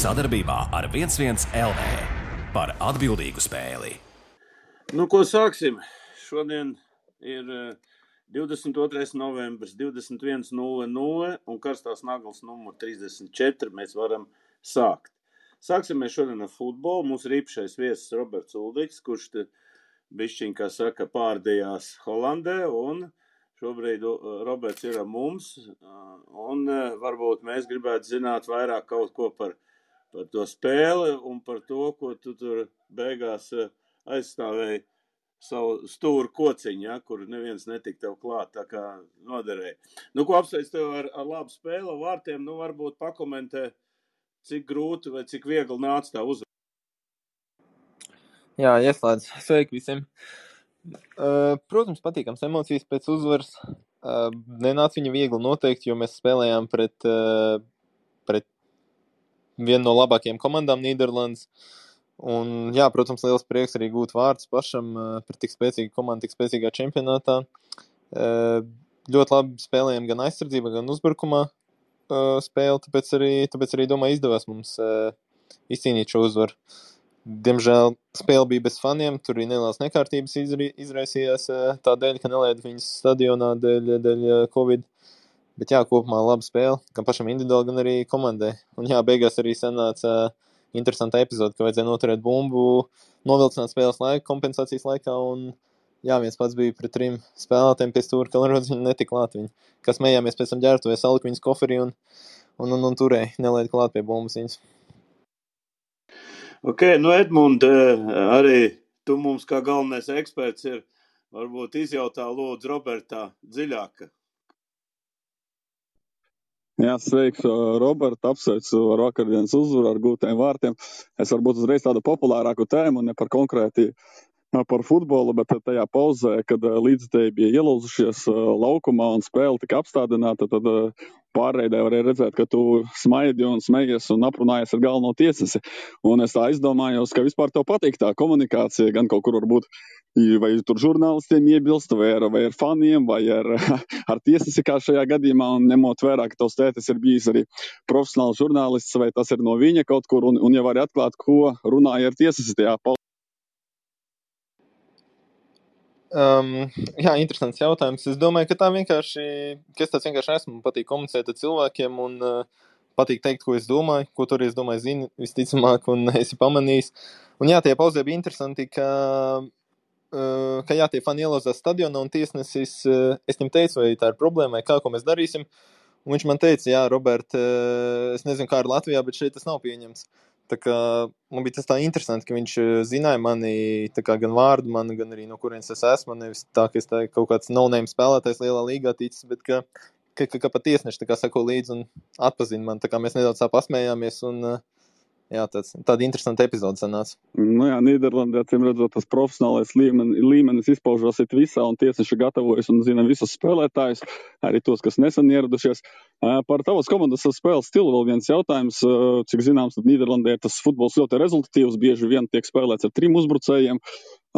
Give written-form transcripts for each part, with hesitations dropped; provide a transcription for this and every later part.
Sadarbībā ar 11 LV par atbildīgu spēli. Nu, ko sāksim? Šodien ir 22. novembris, 21.00 un karstās naglas numur 34. Mēs varam sākt. Sāksim mēs šodien ar futbolu. Mums ir īpašais viesis Roberts Uldiks, kurš te bišķiņ, kā saka, pārdījās Holandē, un šobrīd Roberts ir ar mums, un varbūt mēs gribētu zināt vairāk kaut ko par to spēli un par to, ko tu tur beigās aizstāvēji savu stūru kociņu, ja, kur neviens netika tev klāt, tā kā noderēja. Nu, ko apsveic tev ar labu spēli vārtiem, nu, varbūt pakomentē, cik grūti vai cik viegli nāca tā uzvara. Jā, ieslēdz. Sveiki visiem. Protams, patīkams emocijas pēc uzvaras. Nenāca viņa viegli noteikti, jo mēs spēlējām pret vienu no labākajām komandām Nīderlandes. Un, jā, protams, liels prieks arī gūt vārdus pašam par tik spēcīgu komandu, tik spēcīgā čempionātā. Ļoti labi spēlējām gan aizsardzībā, gan uzbrukumā spēli, tāpēc arī domāju, izdevās mums izcīnīt šo uzvaru. Diemžēl spēle bija bez faniem, tur arī nelielas nekārtības izraisījās tā dēļ, ka nelaida viņus stadionā dēļ Covid. Bet jā, kopumā laba spēle, gan pašam individuāli, gan arī komandai. Un jā, beigās arī sanāca interesanta epizode, ka vajadzēja noturēt bumbu, novilcināt spēles laiku, kompensācijas laikā, un jā, viens pats bija pret 3 spēlētājiem pie stūra, ka Lerodz viņi netika klāt viņi. Kas smējāmies pēc tam ģērbtuvēs, salika viņas koferī un turēja, nelaida klāt pie bumbas viņas. Ok, nu Edmund, arī tu mums kā galvenais eksperts ir, varbūt izjautā lūdzu Robertā dziļāk. Jā, sveiks, Robert, apsveicu ar vakardienas uzvaru, ar gūtiem vārtiem. Es varbūt uzreiz tādu populārāku tēmu, ne par konkrēti par futbolu, bet tajā pauzē, kad līdzstēji bija ielūzušies laukumā un spēle tika apstādināta, tad pārreidē varēja redzēt, ka tu smaidi un smejies un aprunājies ar galveno tiesasi. Un es tā izdomājos, ka vispār tev patīk tā komunikācija, gan kaut kur varbūt vai tur žurnālistiem iebilst, vai ar faniem, vai ar tiesasi kā šajā gadījumā, un ņemot vērā, ka tavs tētis ir bijis arī profesionāls žurnālists, vai tas ir no viņa kaut kur, un jau var atklāt, ko runāja ar tiesasi tajā pauzē. Jā, interesants jautājums. Es domāju, ka es tāds vienkārši esmu, patīk komunicēt ar cilvēkiem un patīk teikt, ko es domāju, ko tur es domāju zini visticamāk un esi pamanījis. Un jā, tie pauzē bija interesanti, ka jā, tie fani ielauzās stadionā un tiesnesis, es viņam teicu, vai tā ir problēma, vai kā, ko mēs darīsim. Un viņš man teica, jā, Robert, es nezinu, kā ir Latvijā, bet šeit tas nav pieņemts. Tā kā man bija tas tā interesanti, ka viņš zināja mani tā kā gan vārdu mani, gan arī no kurienes es esmu, nevis tā, ka es tā kaut kāds no-name spēlētājs lielā līgā ticis, bet ka pat tiesneši tā kā sako līdzi un atpazina man, tā kā mēs nedaudz tā pasmējāmies un jā, tāda interesanta epizode sanāca. Nu jā, Nīderlandē, acīm redzot, tas profesionālais līmenis izpaužos visā, un tiesneši gatavojas un zina visus spēlētājus, arī tos, kas nesen ieradušies. Par tavas komandas spēles stilu vēl viens jautājums. Cik zināms, tad Nīderlandē tas futbols ļoti rezultatīvs, bieži vien tiek spēlēts ar 3 uzbrucējiem,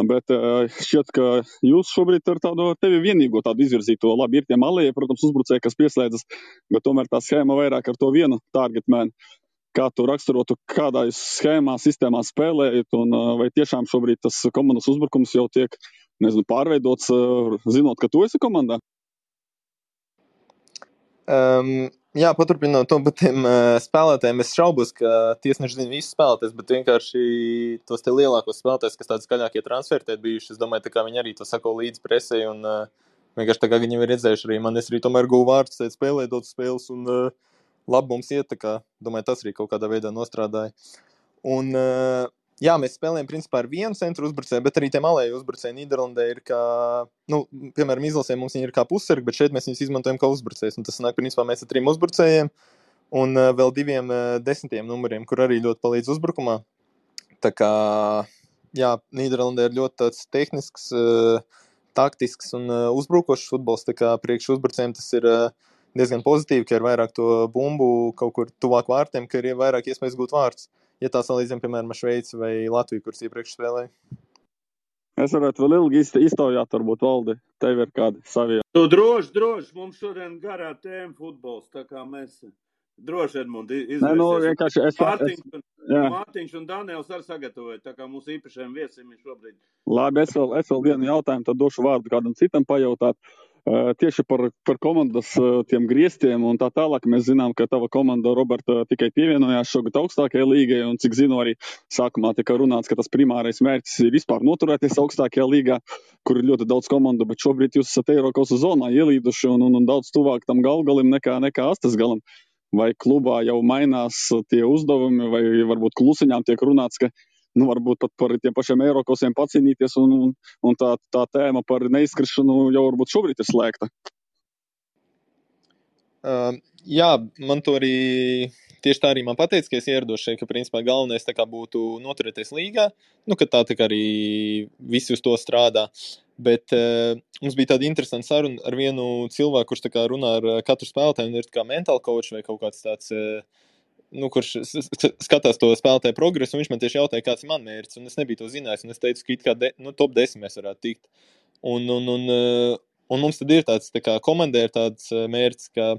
bet šķiet, ka jūs šobrīd ar tevi vienīgo tādu izvirzīto, labi, ir tie malēji, protams, uzbrucēji, kas pieslēdzas, bet tomēr tā schēma vairāk ar to vienu target man. Kā tu raksturotu, kādā schēmā, sistēmā spēlējat, un vai tiešām šobrīd tas komandas uzbrukums jau tiek, pārveidots, zinot, ka tu esi komandā? Jā, paturpinot to par tiem spēlētājiem, es šaubos, ka tiesneši zina visus spēlētājus, bet vienkārši tos te lielākos spēlētājus, kas tādi skaļākie transferti bijuši, es domāju, tā kā viņi arī to sako līdz presei, un vienkārši tā kā viņi ir redzējuši arī man, es arī tomēr guvu vārdus, spēlēt daudz spēles, un labi mums iet, tā kā, domāju, tas arī kaut kādā veidā nostrādāja. Un, jā, mēs spēlējam principā ar vienu centru uzbrucēju, bet arī tie malēji uzbrucēji Nīderlandē ir kā, piemēram, izlasē mums viņi ir kā pussargi, bet šeit mēs viņus izmantojam kā uzbrucējus. Un tas sanāk, principā mēs ar 3 uzbrucējiem un vēl 2 10. numuriem, kur arī ļoti palīdz uzbrukumā. Tā kā, jā, Nīderlandē ir ļoti tāds tehnisks, taktisks un uzbrukošs futbols, tā kā priekš uzbrucējiem tas ir diezgan pozitīvi, ka ir vairāk to bumbu kaut kur tuvāk vārtiem, ka ir vairāk iespējas gūt vārtus. Ja tā salīdzinām, piemēram, ar Šveici vai Latviju, kuras iepriekš spēlēja. Es varētu vēl ilgi iztaujāt, varbūt, Valdi, tev ir kādi savi. Tu droši, mums šodien garā tēma futbols, tā kā mēs droši, Edmund, izvēlēsies. Vienkārši Jā. Mārtiņš un Daniels arī sagatavoja, tā kā mūsu īpašajiem viesim ir šobrīd. Labi, es vēl vienu jautājumu, tad došu vārdu kādam citam pajautāt. Tieši par komandas tiem griestiem un tā tālāk. Mēs zinām, ka tava komanda, Roberta, tikai pievienojās šogad augstākajai līgai, un cik zinu, arī sākumā tika runāts, ka tas primārais mērķis ir vispār noturēties augstākajā līgā, kur ir ļoti daudz komandu, bet šobrīd jūs esat Eirokausas zonā ielīduši un daudz tuvāk tam galgalim nekā astes galam. Vai klubā jau mainās tie uzdevumi, vai varbūt klusiņām tiek runāts, ka varbūt pat par tiem pašiem Eirokausiem pacīnīties, un tā tēma par neizskrišanu jau varbūt šobrīd ir slēgta. Jā, man to arī tieši tā arī man pateica, ka es ierados šeit, ka principā galvenais tā kā būtu noturēties līgā, ka tā kā arī visi uz to strādā. Bet mums bija tāda interesanta saruna ar vienu cilvēku, kurš tā kā runā ar katru spēlētāju, un ir tā kā mental coach vai kaut kāds tāds, kurš skatās to spēlētāju progresu, un viņš man tieši jautāja, kāds ir man mērķis, un es nebiju to zinājis, un es teicu, ka it kā top 10 mēs varētu tikt. Un mums tad ir tāds, tā kā komandē ir tāds mērķis, ka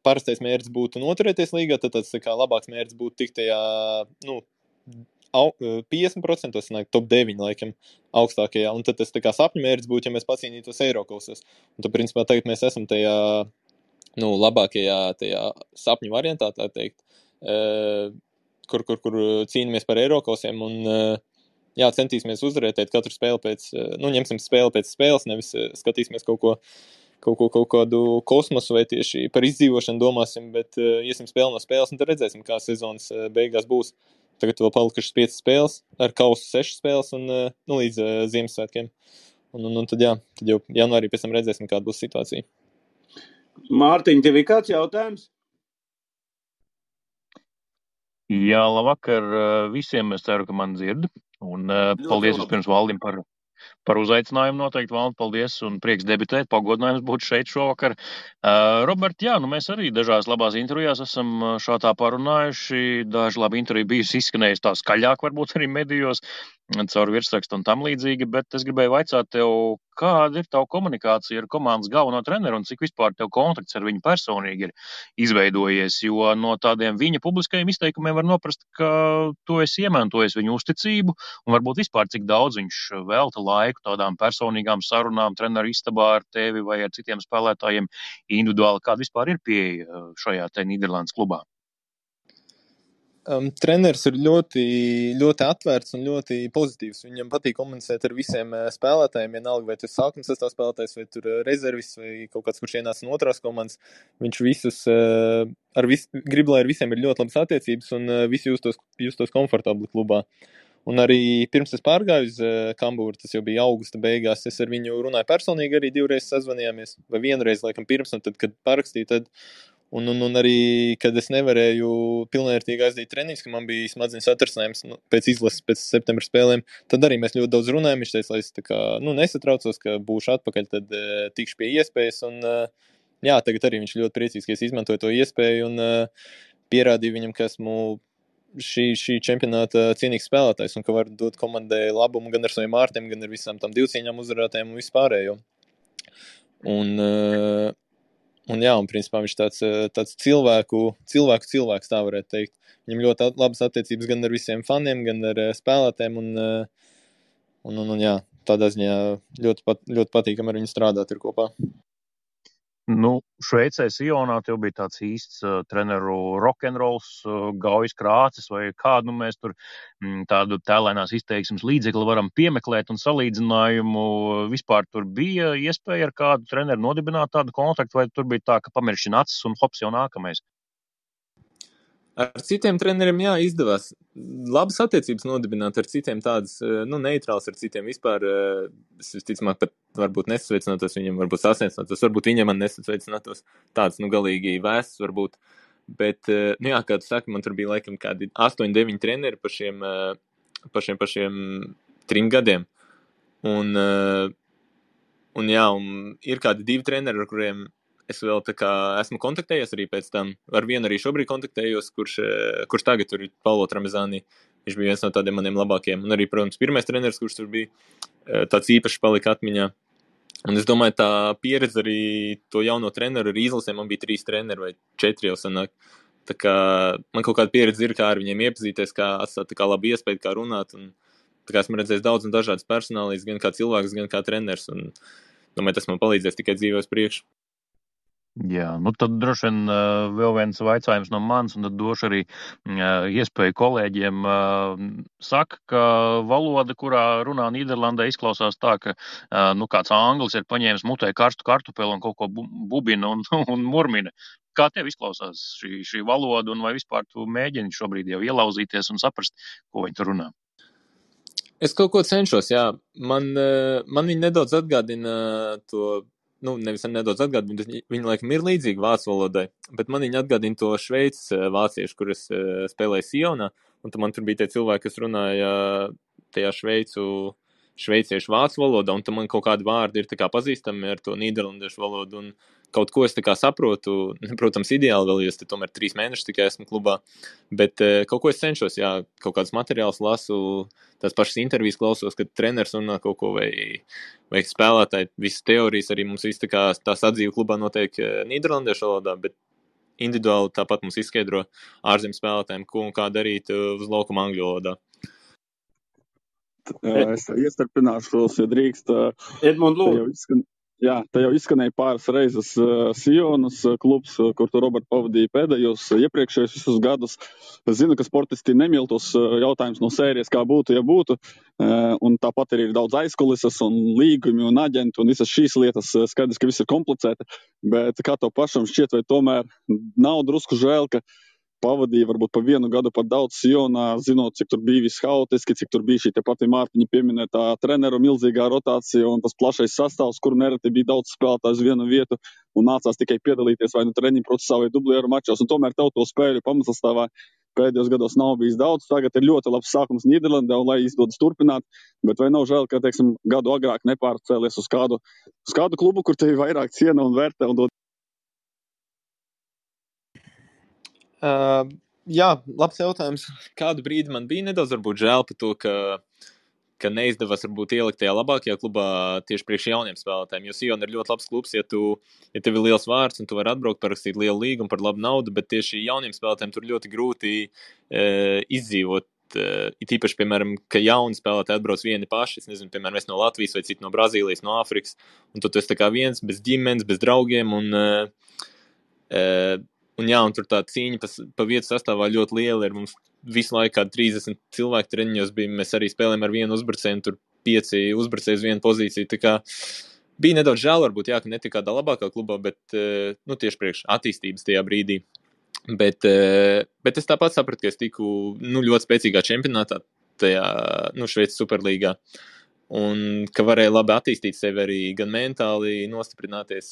parastais mērķis būtu noturēties līgā, tad tāds tā kā labāks mērķis būtu tikt tajā, 50% sanāk top 9 laikam augstākajā, un tad tas tā kā sapņu mērķis būtu, ja mēs pacīnītos Eirokausos. Un tad, principā, tagad mēs esam tajā, labākajā tajā sapņu variantā, tā teikt, kur cīnamies par Eirokausiem, un centīsimies uzvarētēt katru spēli pēc, ņemsim spēli pēc spēles, nevis skatīsimies kaut kādu kosmosu vai tieši par izdzīvošanu domāsim, bet iesim spēli no spēles, un tad redzēsim, kā sezonas beigās būs. Tagad vēl palikušas 5 spēles, ar kausu 6 spēles un līdz Ziemassvētkiem. Un tad jau janvārī pēc tam redzēsim, kāda būs situācija. Mārtiņ, tev ir kāds jautājums? Jā, labvakar visiem. Es ceru, ka man dzird. Un paldies vispirms Valdim par uzaicinājumu noteikti, Valdi, paldies un prieks debitēt, pagodinājums būt šeit šovakar. Robert, mēs arī dažās labās intervijās esam šādā parunājuši, daži labi interviju bijusi izskanējusi tā skaļāk varbūt arī medijos, caur virsrakstu un tam līdzīgi, bet es gribēju vaicāt tev, kāda ir tava komunikācija ar komandas galveno treneru un cik vispār tev kontakts ar viņu personīgi ir izveidojies, jo no tādiem viņa publiskajiem izteikumiem var noprast, ka tu esi iemantojis viņu uzticību un varbūt vispār cik daudz viņš velta laiku tādām personīgām sarunām treneru istabā ar tevi vai ar citiem spēlētājiem individuāli, kāda vispār ir pieeja šajā te Nīderlandes klubā? Treneris ir ļoti, ļoti atvērts un ļoti pozitīvs. Viņam patīk komunicēt ar visiem spēlētājiem, vienalga, vai tu sākuma sastāvā spēlētājs, vai tur rezervis, vai kaut kāds, kurš ienāca no otrās komandas. Viņš visus, grib, lai ar visiem ir ļoti labas attiecības un visi justos komfortabli klubā. Un arī pirms es pārgāju uz Kambūru, tas jau bija augusta beigās, es ar viņu runāju personīgi, arī 2 reizes sazvanījāmies, vai 1 reizi, laikam, pirms, un tad, kad parakstīju, tad Un arī, kad es nevarēju pilnvērtīgi aizdīt treniņus, ka man bija smadzeņu satrasinājums pēc izlases, pēc septembra spēlēm, tad arī mēs ļoti daudz runājam. Viņš teica, lai es tā kā, nesatraucos, ka būšu atpakaļ, tad tikšu pie iespējas. Un, tagad arī viņš ļoti priecīgs, ka es izmantoju to iespēju un pierādīju viņam, ka esmu šī čempionāta cienīgs spēlētājs un ka var dot komandai labumu gan ar saviem ārtiem, gan ar visām tam divcīņām uzvarētājiem un vispārējo. Un principā viņš tāds cilvēks, tā varētu teikt. Viņam ļoti labas attiecības gan ar visiem faniem, gan ar spēlētēm, un tādā ziņā ļoti patīkami ar viņu strādāt ir kopā. Šveicē Sionā tev bija tāds īsts treneru rokenrols, Gaujas Krācis vai kādu mēs tur tādu tēlēnās izteiksmes līdzekli varam piemeklēt un salīdzinājumu. Vispār tur bija iespēja ar kādu treneru nodibināt tādu kontaktu, vai tur bija tā, ka pamiršķina acis un hops jau nākamais? Ar citiem treneriem, izdevās labas attiecības nodibināt, ar citiem tādas, neitrāls, ar citiem vispār, es visticamāk pat varbūt nesasveicinātos viņam, varbūt sasniecinātos, varbūt viņam man nesasveicinātos, tāds, galīgi vēsts varbūt, bet, kā tu saki, man tur bija laikam kādi 8-9 treneri par šiem 3 gadiem, un ir kādi 2 treneri, ar kuriem es vēl tā kā esmu kontaktējies arī pēc tam. Ar vienu arī šobrīd kontaktējos, kurš tagad tur ir Paulo Tramezani. Viņš bija viens no tādiem maniem labākiem. Un arī, protams, pirmais treneris, kurš tur bija, tāds īpašs palika atmiņā. Un es domāju, tā pieredze arī to jauno treneru ar izlasēm, man bija 3 treneri vai 4 jau sanāk. Tā kā man kaut kāda pieredze ir, kā ar viņiem iepazīties, kā atstāt tā kā labu iespēju, kā runāt. Un, tā kā esmu redzējis daudz un dažādas personālijas, gan kā cilvēks, gan kā treneris. Un domāju, tas man palīdzēs tikai dzīvē uz priekšu. Jā, nu tad droši vien vēl viens vaicājums no manis, un tad došu arī iespēju kolēģiem. Saka, ka valoda, kurā runā Nīderlandē, izklausās tā, ka kāds anglis ir paņēmis mutē karstu kartupeli un kaut ko bubina un murmina. Kā tev izklausās šī valoda, un vai vispār tu mēģini šobrīd jau ielauzīties un saprast, ko viņi tur runā? Es kaut ko cenšos, jā. Man viņi nedaudz atgādina to. Nevis nedaudz atgādina, bet viņi laikam ir līdzīgi vācu valodai, bet man viņi atgādina to šveicis vāciešu, kur es spēlēju Sionā, un man tur bija tie cilvēki, kas runāja tajā šveiciešu vācu valodā, un tam man kaut kādi vārdi ir tā kā pazīstami ar to nīderlandiešu valodu, un kaut ko es tā kā saprotu, protams, ideāli vēl, jo es te tomēr 3 mēnešus tikai esmu klubā, bet kaut ko es cenšos, jā, kaut kādus materiālus lasu, tās pašas intervijas klausos, kad treneris runā kaut ko vai spēlētāji, visas teorijas arī mums viss tā kā tā sadzīve klubā notiek nīderlandiešu valodā, bet individuāli tāpat mums izskaidro ārzem spēlētājiem, ko un kā darīt uz laukuma angļu valodā. Es iestarpināšos, ja drīkst. Edmund, lūdzu. Te jau izskanēja pāris reizes Sionas klubs, kur tu, Robert, pavadīja pēdējos iepriekšējos visus gadus. Es zinu, ka sportisti nemīl tos jautājumus no sērijas, kā būtu, ja būtu. Un tāpat arī ir daudz aizkulises un līgumi un aģenti un visas šīs lietas. Skaidrs, ka viss ir komplicēti, bet kā tev pašam šķiet, vai tomēr nav drusku žēl, ka pavadīja varbūt pa 1 gadu par daudz Sionā, zinot, cik tur bija viss haotiski, cik tur bija šī te pati Mārtiņa pieminētā treneru milzīgā rotācija un tas plašais sastāvs, kur nereti bija daudz spēlētāju uz vienu vietu un nācās tikai piedalīties vai treniņu procesā vai dublieru mačos. Un tomēr tev to spēļu pamatsastāvā pēdējos gados nav bijis daudz. Tagad ir ļoti labs sākums Nīderlandē un lai izdodas turpināt, bet vai nav žēl, ka, teiksim, gadu agrāk nepārcēlies uz kādu klubu, kur tevi vairāk ciena un vērtē un dod? Jā, labs jautājums. Kādu brīdi man bija nedaudz varbūt žēl par to, ka neizdevās varbūt ielikt tajā labākajā klubā tieši priekš jauniem spēlētājiem, jo Sion ir ļoti labs klubs, ja tev ir liels vārds un tu vari atbraukt, parakstīt lielu līgumu par labu naudu, bet tieši jauniem spēlētājiem tur ļoti grūti izdzīvot. It īpaši, piemēram, ka jauni spēlētāji atbrauc vieni paši, es nezinu, piemēram, es no Latvijas vai citi no Brazīlijas, no Āfrikas, un tu esi tā kā viens, bez ģimenes, bez draugiem, un jā, un tur tā cīņa pa vietu sastāvā ļoti liela ir. Mums visu laiku kādi 30 cilvēku treniņos bija, mēs arī spēlējam ar vienu uzbrucēju, tur 5 uzbrucēji uz vienu pozīciju. Tā kā bija nedaudz žēl varbūt, jā, ka netika kādā labākā klubā, bet tieši priekš attīstības tajā brīdī. Bet es tāpat sapratu, ka es tiku ļoti spēcīgā čempionātā, tajā Šveices superlīgā. Un ka varēja labi attīstīt sevi arī gan mentāli nostiprināties,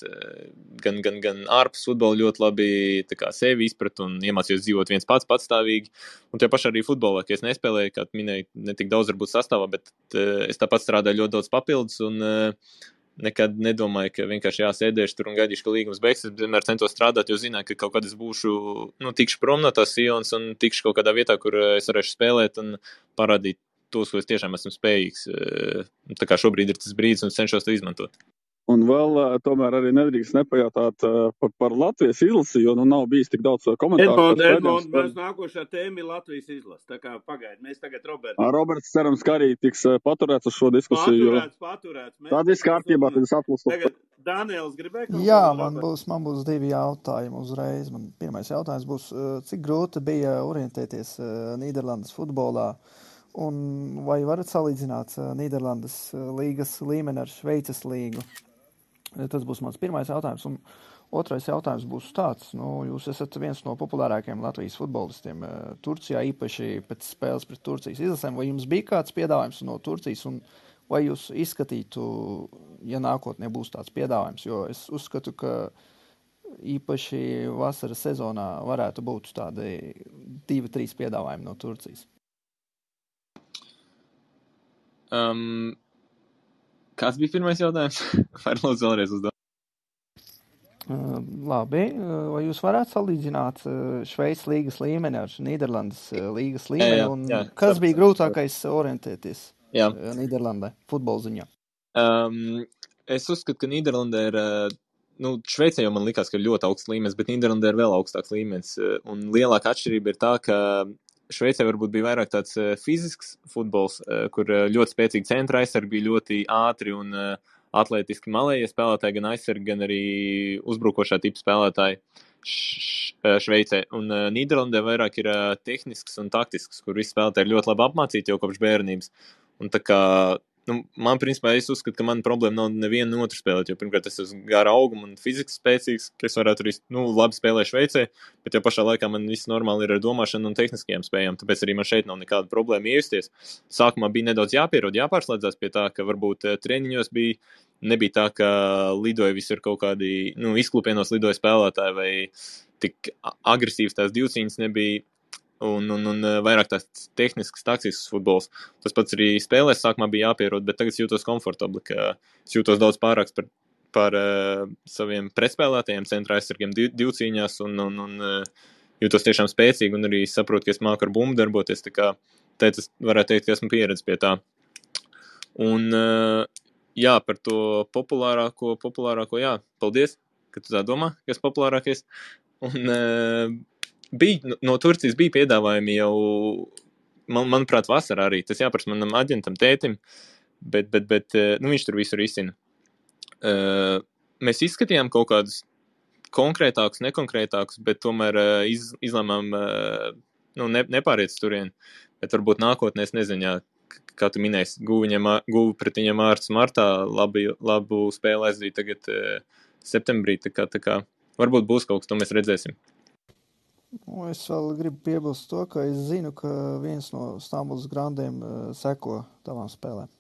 gan ārpus futbola ļoti labi tā kā sevi izprat un iemācījos dzīvot viens pats patstāvīgi. Un tie paši arī futbolā, ka es nespēlēju, kā minēju, ne tik daudz varbūt sastāvā, bet es tāpat strādāju ļoti daudz papildus un nekad nedomāju, ka vienkārši sēdēšu tur un gaidīšu, ka līgums beigsies. Es vienmēr centos strādāt, jo zināju, ka kaut kad es būšu, tikšu prom no tās Sionas un tikšu kaut kādā vietā, kur es varēšu spēlēt un parādīt tos, ko es tiešām esmu spējīgs. Tā kā šobrīd ir tas brīdis un cenšos to izmantot. Un vēl tomēr arī nedrīkst nepajautāt par Latvijas izlasi, jo nav bijis tik daudz komentāru. Edmund, mēs nākošā tēma ir Latvijas izlase. Tā kā pagaid, mēs tagad Roberts cerams, ka arī tiks paturēts uz šo diskusiju. Paturēts. Tāda viss kārtībā, tad es atlasu. Tagad Daniels gribēja kaut Jā, man būs 2 jautājumi uzreiz. Man pirmais jautājums būs, cik grūti bija orientēties Nīderlandes futbolā? Un vai varat salīdzināt Nīderlandes līgas līmeni ar Šveices līgu? Tas būs mans pirmais jautājums. Un otrais jautājums būs tāds. Jūs esat viens no populārākajiem Latvijas futbolistiem Turcijā, īpaši pēc spēles pret Turcijas izlasēm. Vai jums bija kāds piedāvājums no Turcijas? Un vai jūs izskatītu, ja nākotnē būs tāds piedāvājums? Jo es uzskatu, ka īpaši vasaras sezonā varētu būt tādi 2-3 piedāvājumi no Turcijas. Kāds bija pirmais jautājums? Vai lūdzu vēlreiz uzdot? Labi. Vai jūs varētu salīdzināt Šveices līgas līmeni ar Nīderlandes līgas līmeni? Jā, kas bija grūtākais orientēties Jā. Nīderlandē futbola ziņā? Es uzskatu, ka Nīderlandē ir Šveicē jau man likās, ka ir ļoti augsts līmenis, bet Nīderlandē ir vēl augstāks līmenis. Un lielāka atšķirība ir tā, ka Šveicē varbūt bija vairāk tāds fizisks futbols, kur ļoti spēcīgi centra aizsargi bija ļoti ātri un atlētiski malējie spēlētāji, gan aizsargi, gan arī uzbrukošā tipa spēlētāji Šveicē. Un Nīderlandē vairāk ir tehnisks un taktisks, kur visi spēlētāji ir ļoti labi apmācīti jau kopš bērnības. Un tā kā man, principā, es uzskatu, ka man problēma nav nevienu no otru spēlēt, jo pirmkārt es esmu gara auguma un fiziski spēcīgs, ka es varētu arī, labi spēlēt Šveicē, bet jau pašā laikā man viss normāli ir ar domāšanu un tehniskajām spējām, tāpēc arī man šeit nav nekāda problēma iejusties. Sākumā bija nedaudz jāpierod, jāpārslēdzās pie tā, ka varbūt treniņos nebija tā, ka lidoja visur kaut kādi, izklupienos lidoja spēlētāji vai tik agresīvs tās divcīņas nebija. Un vairāk tās tehnisks, taktisks futbols. Tas pats arī spēlēs sākumā bija jāpierod, bet tagad jūtos komfortabli, ka es jūtos daudz pārāks par saviem pretspēlētajiem centra aizsargiem divcīņās un jūtos tiešām spēcīgi un arī saprotu, ka es māku ar bumbu darboties, tā kā es varētu teikt, ka esmu pieredzi pie tā. Un jā, par to populārāko, jā, paldies, ka tu tā domā, ka es populārākais. Un no Turcijas bija piedāvājumi jau, manuprāt, vasarā arī. Tas jāprasa manam aģentam tētim, bet viņš tur visur izcina. Mēs izskatījām kaut kādus konkrētākus, nekonkrētākus, bet tomēr izlēmām nepāriet turien. Bet varbūt nākotnē, es nezinu, jā, kā tu minēsi, guvu pret viņam ārsts martā, labu spēli aizdīt tagad septembrī, tā kā varbūt būs kaut kas, to mēs redzēsim. Es vēl gribu piebilst to, ka es zinu, ka viens no Stambulas grandiem seko tavām spēlēm.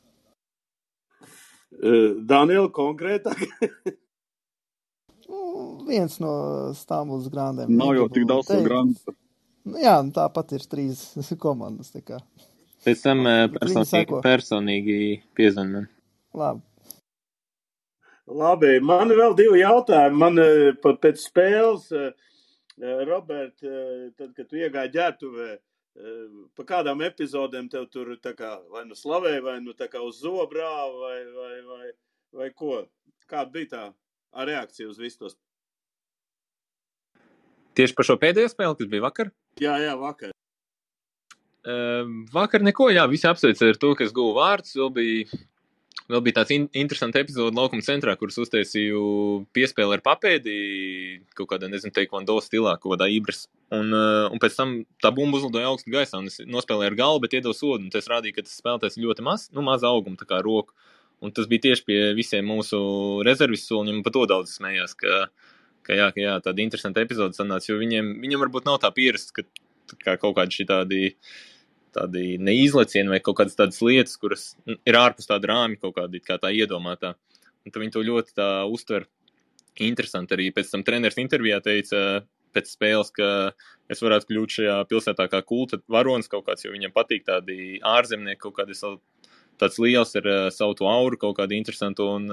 Daniela, konkrētāk? Viens no Stambulas grandiem. Nav jau tik daudz no grandu. Jā, tāpat ir 3 komandas. Tā kā. Pēc tam personīgi piezvan man. Labi, man vēl 2 jautājumi. Man pēc spēles... Robert, tad, kad tu iegāji ģērbtuvē, pa kādām epizodēm tev tur tā kā vai nu slavēja, vai nu tā kā uz zobrāva, vai ko? Kāda bija tā reakcija uz visu tos? Tieši par šo pēdējo spēli, kas bija vakar? Jā, vakar. Vakar neko, jā, visi apsveica ar to, ka es guvu vārdus, vēl bija tāds interesants epizode laukuma centrā, kuras uztaisīju piespēli ar papēdi, kaut kādā, teikvando stilā, kaut kādā ibras. Un pēc tam tā bumba uzlidoja augstu gaisā, un es nospēlēju ar galvu, bet iedevu sodu, un tas rādīja, ka tas spēlētājs ļoti maza auguma, tā kā roku. Un tas bija tieši pie visiem mūsu rezervis soliņiem, un par to daudz smējās, ka jā, tāda interesanta epizode sanāca, jo viņam varbūt nav tā pierast, ka kaut kādi tādi neizlecieni vai kaut kādas tādas lietas, kuras ir ārpus tāda rāmi kaut kādi, kā tā iedomātā. Un tad viņi to ļoti tā uztver interesanti. Arī pēc tam treneris intervijā teica pēc spēles, ka es varētu kļūt šajā pilsētā kā kulta varonis kaut kāds, jo viņam patīk tādi ārzemnieki, kaut kādi tāds liels ar savu to auru, kaut kādi interesanti un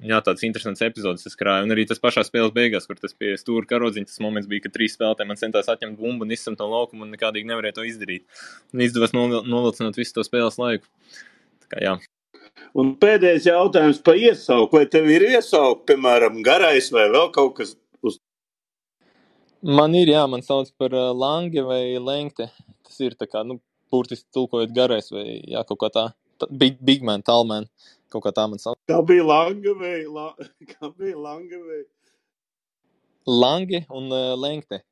jā, tāds interesants epizodes es krāju. Un arī tas pašā spēles beigās, kur tas pie stūra karodziņa, tas moments bija, ka 3 spēlētāji man centās atņemt bumbu un izsamt no laukuma un nekādīgi nevarēja to izdarīt. Un izdevās novilcināt visu to spēles laiku. Tā kā jā. Un pēdējais jautājums par iesauku. Vai tev ir iesauku, piemēram, garais vai vēl kaut kas uz? Man ir, jā, man sauc par lange vai lengte. Tas ir tā kā, burtiski tulkojot garais vai jā, kaut kā tā. Big man, tall man. Kaut kā tā man sauc. Kā bija lange vai? Lange un lengte.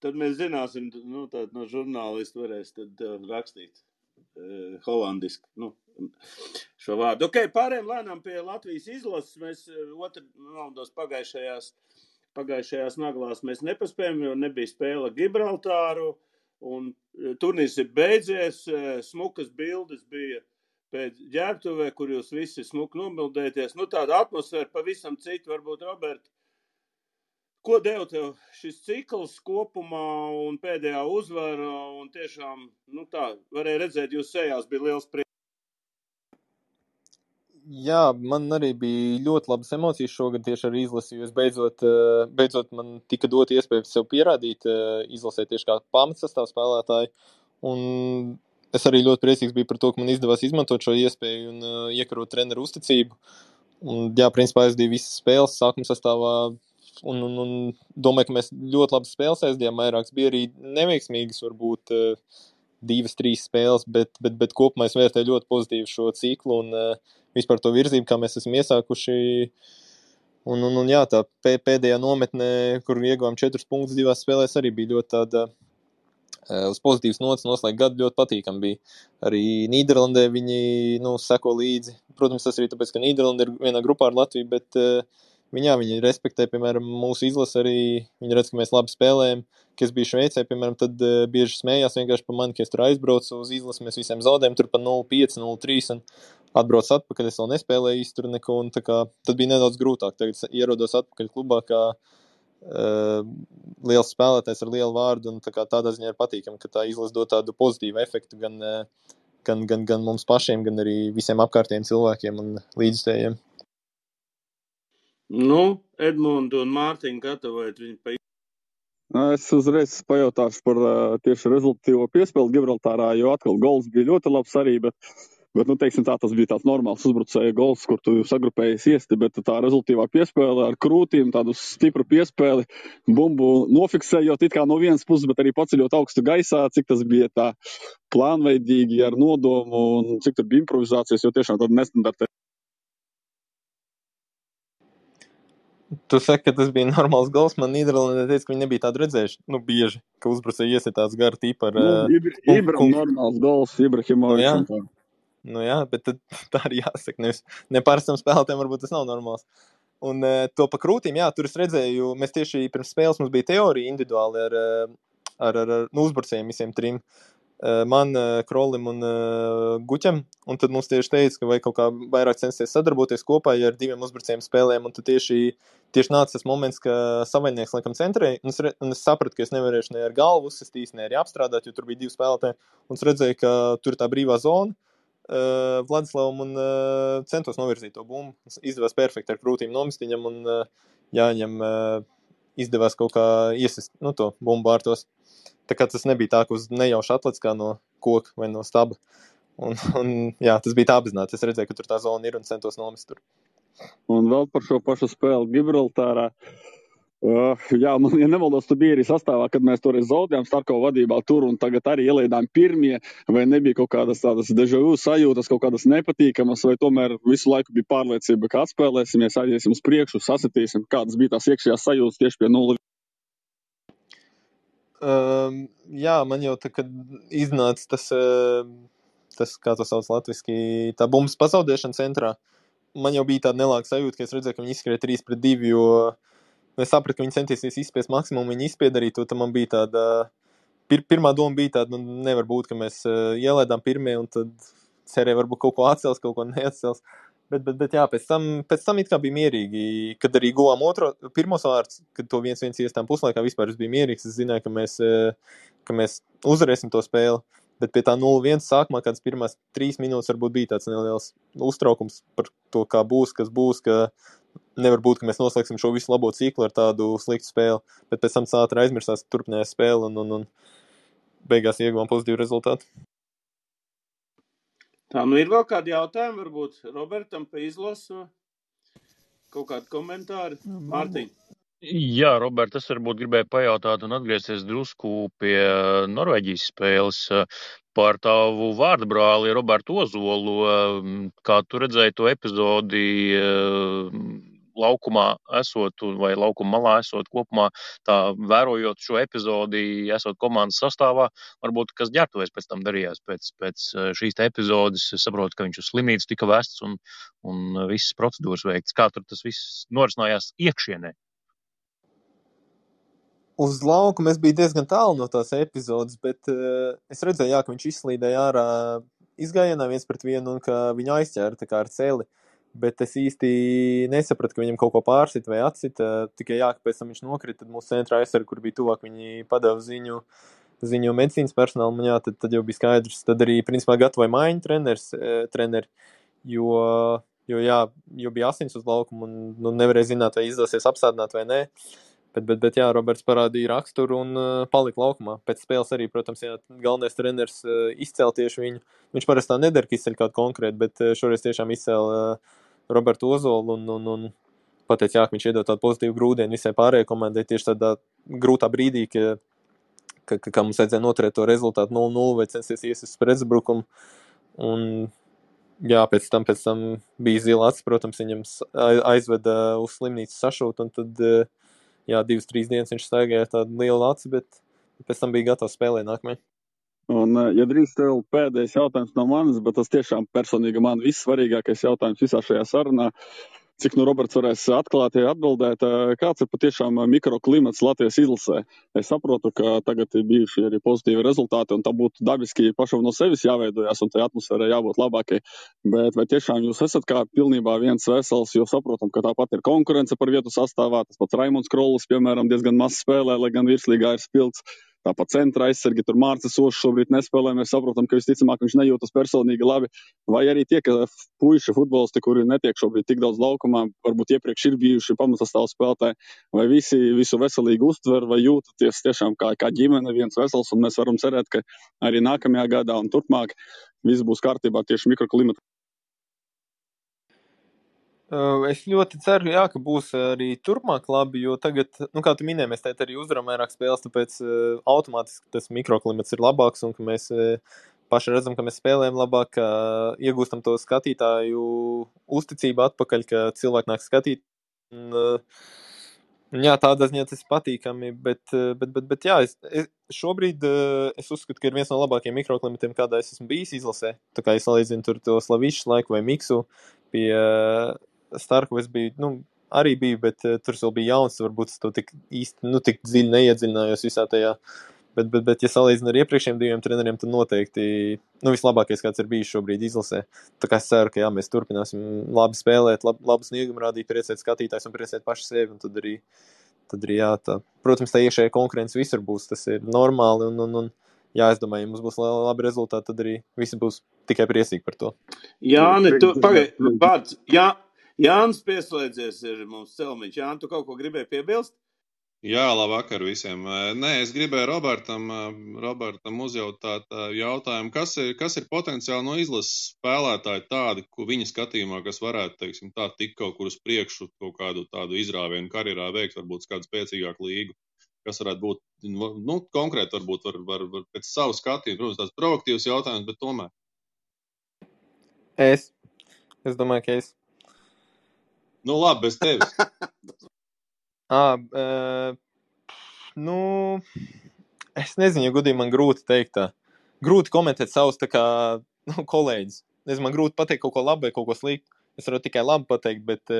Tad mēs zināsim, no žurnālistu varēs tad rakstīt holandiski, šo vārdu. Ok, pārējām lēnām pie Latvijas izlases. Mēs raundos pagājušajās naglās mēs nepaspējām, jo nebija spēle Gibraltāru. Un turnīrs ir beidzies, smukas bildes bija pēc ģērbtuvē, kur jūs visi smuki nomildēties. Tāda atmosfēra pavisam cita, varbūt, Robert. Ko deva tev šis cikls kopumā un pēdējā uzvara? Un tiešām, varēja redzēt, jūs sejās bija liels prieks. Jā, man arī bija ļoti labas emocijas šogad tieši ar izlasi, jo es beidzot man tika dot iespēju sev pierādīt izlasē tieši kā pamatsastāv spēlētāji. Un es arī ļoti priecīgs biju par to, ka man izdevās izmantot šo iespēju un iekarot treneru uzticību. Un, jā, principā aizdīju visas spēles sākuma sastāvā un domāju, ka mēs ļoti labas spēles aizdījām vairākas. Bija arī neveiksmīgas, varbūt 2-3 spēles, bet kopumā es vērtēju ļoti pozitīvi šo ciklu un vispār to virzību, kā mēs esam iesākuši. Un jā, tā pēdējā nometnē, kur ieguvām 4 punktus 2 spēlēs, arī bija ļoti tāda uz pozitīvas nots noslēgt gadu, ļoti patīkami bija. Arī Nīderlandē viņi seko līdzi. Protams, tas arī tāpēc, ka Nīderlanda ir vienā grupā ar Latviju, bet viņi respektē, piemēram, mūsu izlasi arī. Viņi redz, ka mēs labi spēlējam. Kad es biju Šveicē, piemēram, tad bieži smējās vienkārši par mani, ka es tur aizbraucu uz izlasi, mēs visiem zaudējam tur pa 0-5, 0-3 un atbrauc atpakaļ, es vēl nespēlēju īsti tur neko, un tā kā tad bija nedaudz grūtāk. Tagad ierodos atpakaļ klubā, kā liels spēlētājs ar lielu vārdu, un tādā ziņā ir patīkami, ka tā izlase dod tādu pozitīvu efektu gan mums pašiem, gan arī visiem apkārtējiem cilvēkiem un līdzstējiem. Edmundu un Mārtiņu gatavojat viņu pa... Es uzreiz pajautāšu par tieši rezultatīvo piespēli Gibraltārā, jo atkal gols bija ļoti labs arī, bet teiksim tā, tas bija tāds normāls uzbrucēja gols, kur tu sagrupējies iesti, bet tā rezultīvā piespēle ar krūtīm, tādu stipru piespēli, bumbu nofiksējot it kā no vienas puses, bet arī paceļot augstu gaisā, cik tas bija tā plānveidīgi ar nodomu un cik tur bija improvizācijas, jo tiešām tāda nestandarta. Tu saki, ka tas bija normāls gols. Man Nīderlandē teica, ka viņi nebija tādu redzējuši. Bieži, ka uzbrucēji iesiet tāds gara tīpa ar... normāls gols, Ibrahimovičs. Jā, bet tad tā arī jāsaka. Neparastam spēlētājiem varbūt tas nav normāls. Un to pa krūtīm, jā, tur es redzēju, mēs tieši pirms spēles mums bija teorija individuāli ar uzbrucējiem visiem 3. Man, Krolim un Guķam, un tad mums tieši teica, ka vajag kaut kā vairāk censties sadarboties kopā, ja ar 2 uzbrucējiem spēlēm, un tad tieši nāca tas moments, ka savainieks laikam centrēja, un es sapratu, ka es nevarēšu ne ar galvu uzsistīt, ne arī apstrādāt, jo tur bija 2 spēlētāji, un es redzēju, ka tur ir tā brīvā zona Vladislavam un centos novirzīt to bumbu. Izdevās perfekti ar krūtīm nomest viņam, un Jāņam izdevās kaut kā iesist to bumbu vārtos. Tā kā tas nebija tā, ka uz nejauši atlec kā no koka vai no staba. Un jā, tas bija tā apzināti. Es redzēju, ka tur tā zona ir un centos nomest tur. Un vēl par šo pašu spēli Gibraltārā. Jā, man, ja nemaldos, tu biji arī sastāvā, kad mēs toreiz zaudējām Starkova vadībā tur un tagad arī ielaidām pirmie, vai nebija kaut kādas tādas déjà vu sajūtas, kaut kādas nepatīkamas, vai tomēr visu laiku bija pārliecība, ka atspēlēsimies, aiziesim uz priekšu, sasitīsim, kādas bija tās iekšējās sajūtas tieši pie 0. Jā, man jau tā, kad iznāca tas, kā to sauc latviski, tā bumbas pazaudēšana centrā, man jau bija tāda nelāga sajūta, ka es redzēju, ka viņi izskrēja 3-2, jo es sapratu, ka viņi centīsies izspiest maksimumu, viņi izspied arī to, tad man bija tāda, pirmā doma bija tāda, nevar būt, ka mēs ielaidām pirmie, un tad cerēja varbūt kaut ko atcels, kaut ko neatcels. Bet jā, pēc tam it kā bija mierīgi, kad arī guvām pirmos vārds, kad to 1-1 iestām puslaikā vispār es biju mierīgs, es zināju, ka mēs uzvarēsim to spēli, bet pie tā 0-1 sākumā kādas pirmās 3 minūtes varbūt bija tāds neliels uztraukums par to, kā būs, kas būs, ka nevar būt, ka mēs noslēgsim šo visu labo ciklu ar tādu sliktu spēli, bet pēc tam ātri aizmirsās turpinājās spēle un beigās ieguvām pozitīvu rezultātu. Tā, ir vēl kādi jautājumi, varbūt Robertam pa izlasu, kaut kādi komentāri? Mārtiņ. Jā, Robert, es varbūt gribēju pajautāt un atgriezties drusku pie Norvēģijas spēles par tavu vārdabrāli Robertu Ozolu. Kā tu redzēji to epizodi laukumā esot vai laukuma malā esot kopumā, tā vērojot šo epizodi, esot komandas sastāvā, varbūt kas ģērbtuvēs pēc tam darījās pēc šīs te epizodes. Es saprotu, ka viņš uz slimnīcu tika vests un visas procedūras veikts. Kā tur tas viss norisinājās iekšienē? Uz laukuma es biju diezgan tālu no tās epizodes, bet es redzēju, ka viņš izslīdēja ārā izgājienā 1-1 un ka viņu aizķēra tā kā ar celi. Bet es īsti nesapratu, ka viņam kaut ko pārsit vai atsit. Tikai ka pēc tam viņš nokrita, tad mūsu centrā aizsargi, kur bija tuvāk, viņi padeva ziņu medicīnas personālam, un jā, tad jau bija skaidrs. Tad arī, principā, gatavoja maiņu treneri, jo bija asins uz laukumu, un nevarēja zināt, vai izdosies apstādināt vai nē. Bet jā, Roberts parādīja raksturu un palika laukumā. Pēc spēles arī, protams, jā, galvenais treneris izcēla tieši viņu. Viņš parasti tā nedara, ka izceļ kādu konkrētu, bet šoreiz tiešām izcēla Robertu Ozolu un pateica, jā, ka viņš iedod tādu pozitīvu grūdienu visai pārējai komandai tieši tādā grūtā brīdī, ka mums vajadzēja noturēt to rezultātu 0-0 vai censties iesist pretuzbrukumu. Un jā, pēc tam bija zila acis, protams, viņam aizveda uz slimnīcu sašūt, un tad, jā, 2-3 dienas viņš staigāja tādu lielu aci, bet pēc tam bija gatavs spēlēt nākamajai. Un, ja drīkst tev pēdējais jautājums no manis, bet tas tiešām personīgi man vissvarīgākais jautājums visā šajā sarunā, cik nu Roberts varēs atklāti atbildēt, kāds ir patiešām mikroklimats Latvijas izlasē? Es saprotu, ka tagad ir bijuši arī pozitīvi rezultāti, un tā būtu dabiski pašam no sevis jāveidojās, un tai atmosfērai jābūt labākai. Bet vai tiešām jūs esat kā pilnībā viens vesels, jo saprotam, ka tāpat ir konkurence par vietu sastāvā, tas pats Raimonds Krollis, piemēram, diezgan maz spēlē, lai gan virslīgā ir spilgts. Tāpat centra aizsargi, tur Mārcis Ošs šobrīd nespēlē, mēs saprotam, ka visticamāk viņš nejūtas personīgi labi. Vai arī tie, ka puiši futbolisti, kuri netiek šobrīd tik daudz laukumā, varbūt iepriekš ir bijuši pamatsastāvu spēlētāji, vai visi visu veselīgi uztver, vai jūtaties tiešām kā ģimene viens vesels, un mēs varam cerēt, ka arī nākamajā gadā un turpmāk viss būs kārtībā tieši mikroklimata. Es ļoti ceru, jā, ka būs arī turpmāk labi, jo tagad, kā tu minēji, mēs teikt arī uzvaram vairāk spēles, tāpēc automātiski tas mikroklimats ir labāks un ka mēs paši redzam, ka mēs spēlējam labāk, ka iegūstam to skatītāju uzticību atpakaļ, ka cilvēki nāk skatīt. Jā, tādā ziņā tas patīkami, bet jā, šobrīd es uzskatu, ka ir viens no labākajiem mikroklimatiem, kādā es esmu bijis izlasē. Tā kā es salīdzinu tur to Slavišs laiku vai Miksu pie Starku, es biju, arī biju, bet tur vēl bija jauns, varbūt es to tik īsti, tik dziļi neiedziļinājos visā tajā. Bet ja salīdzinu ar iepriekšējiem 2 treneriem, tad noteikti, vislabākais, kāds ir bijis šobrīd izlasē. Tā kā es ceru, ka jā, mēs turpināsim labi spēlēt, labu sniegumu rādīt, priecēt skatītājs un priecēt paši sevi, un tad arī jā, tā. Protams, tā iekšējā konkurence visur būs, tas ir normāli, un jā, es domāju, ja mums būs labi rezultāti, tad arī visi būs tikai priecīgi par to. Jāni, tu pagaidi, vārds, Jānis pieslēdzies ir mums celmiņš. Jāni, tu kaut ko gribēji piebilst? Jā, labvakar visiem. Nē, es gribēju Robertam uzjautāt jautājumu, kas ir potenciāli no izlases spēlētāji tādi, ko viņa skatījumā, kas varētu, teiksim, tā tikt kaut kur uz priekšu, kaut kādu tādu izrāvienu karjerā veikt, varbūt kādu spēcīgāku līgu, kas varētu būt, konkrēti varbūt var pēc savu skatījumu, protams, tāds proaktīvs jautājums, bet tomēr. Es domāju, ka es. Labi, bez tevis. Es nezinu, ja godīgi man grūti teikt tā. Grūti komentēt savus tā kā kolēģis. Man grūti pateikt kaut ko labu vai kaut ko sliktu. Es varu tikai labi pateikt, bet...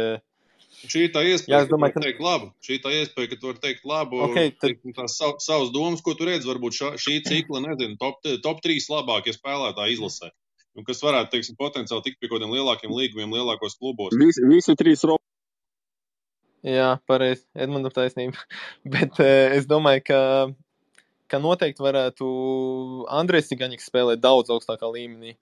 Šī tā iespēja, ka tu vari teikt labu. Šī tā iespēja, ka tu vari teikt labu. Okay, tad... Tās savas domas, ko tu redzi, varbūt šī cikla, nezinu, top 3 labākie spēlētāji izlasē. Kas varētu, teiksim, potenciāli tikt pie kaut kādiem lielākiem līgumiem, lielākos klubos. Visi 3 Jā, pareizi, Edmundam taisnība. Bet es domāju, ka noteikti varētu Andrejs Cigaņiks spēlēt daudz augstākā līmenī.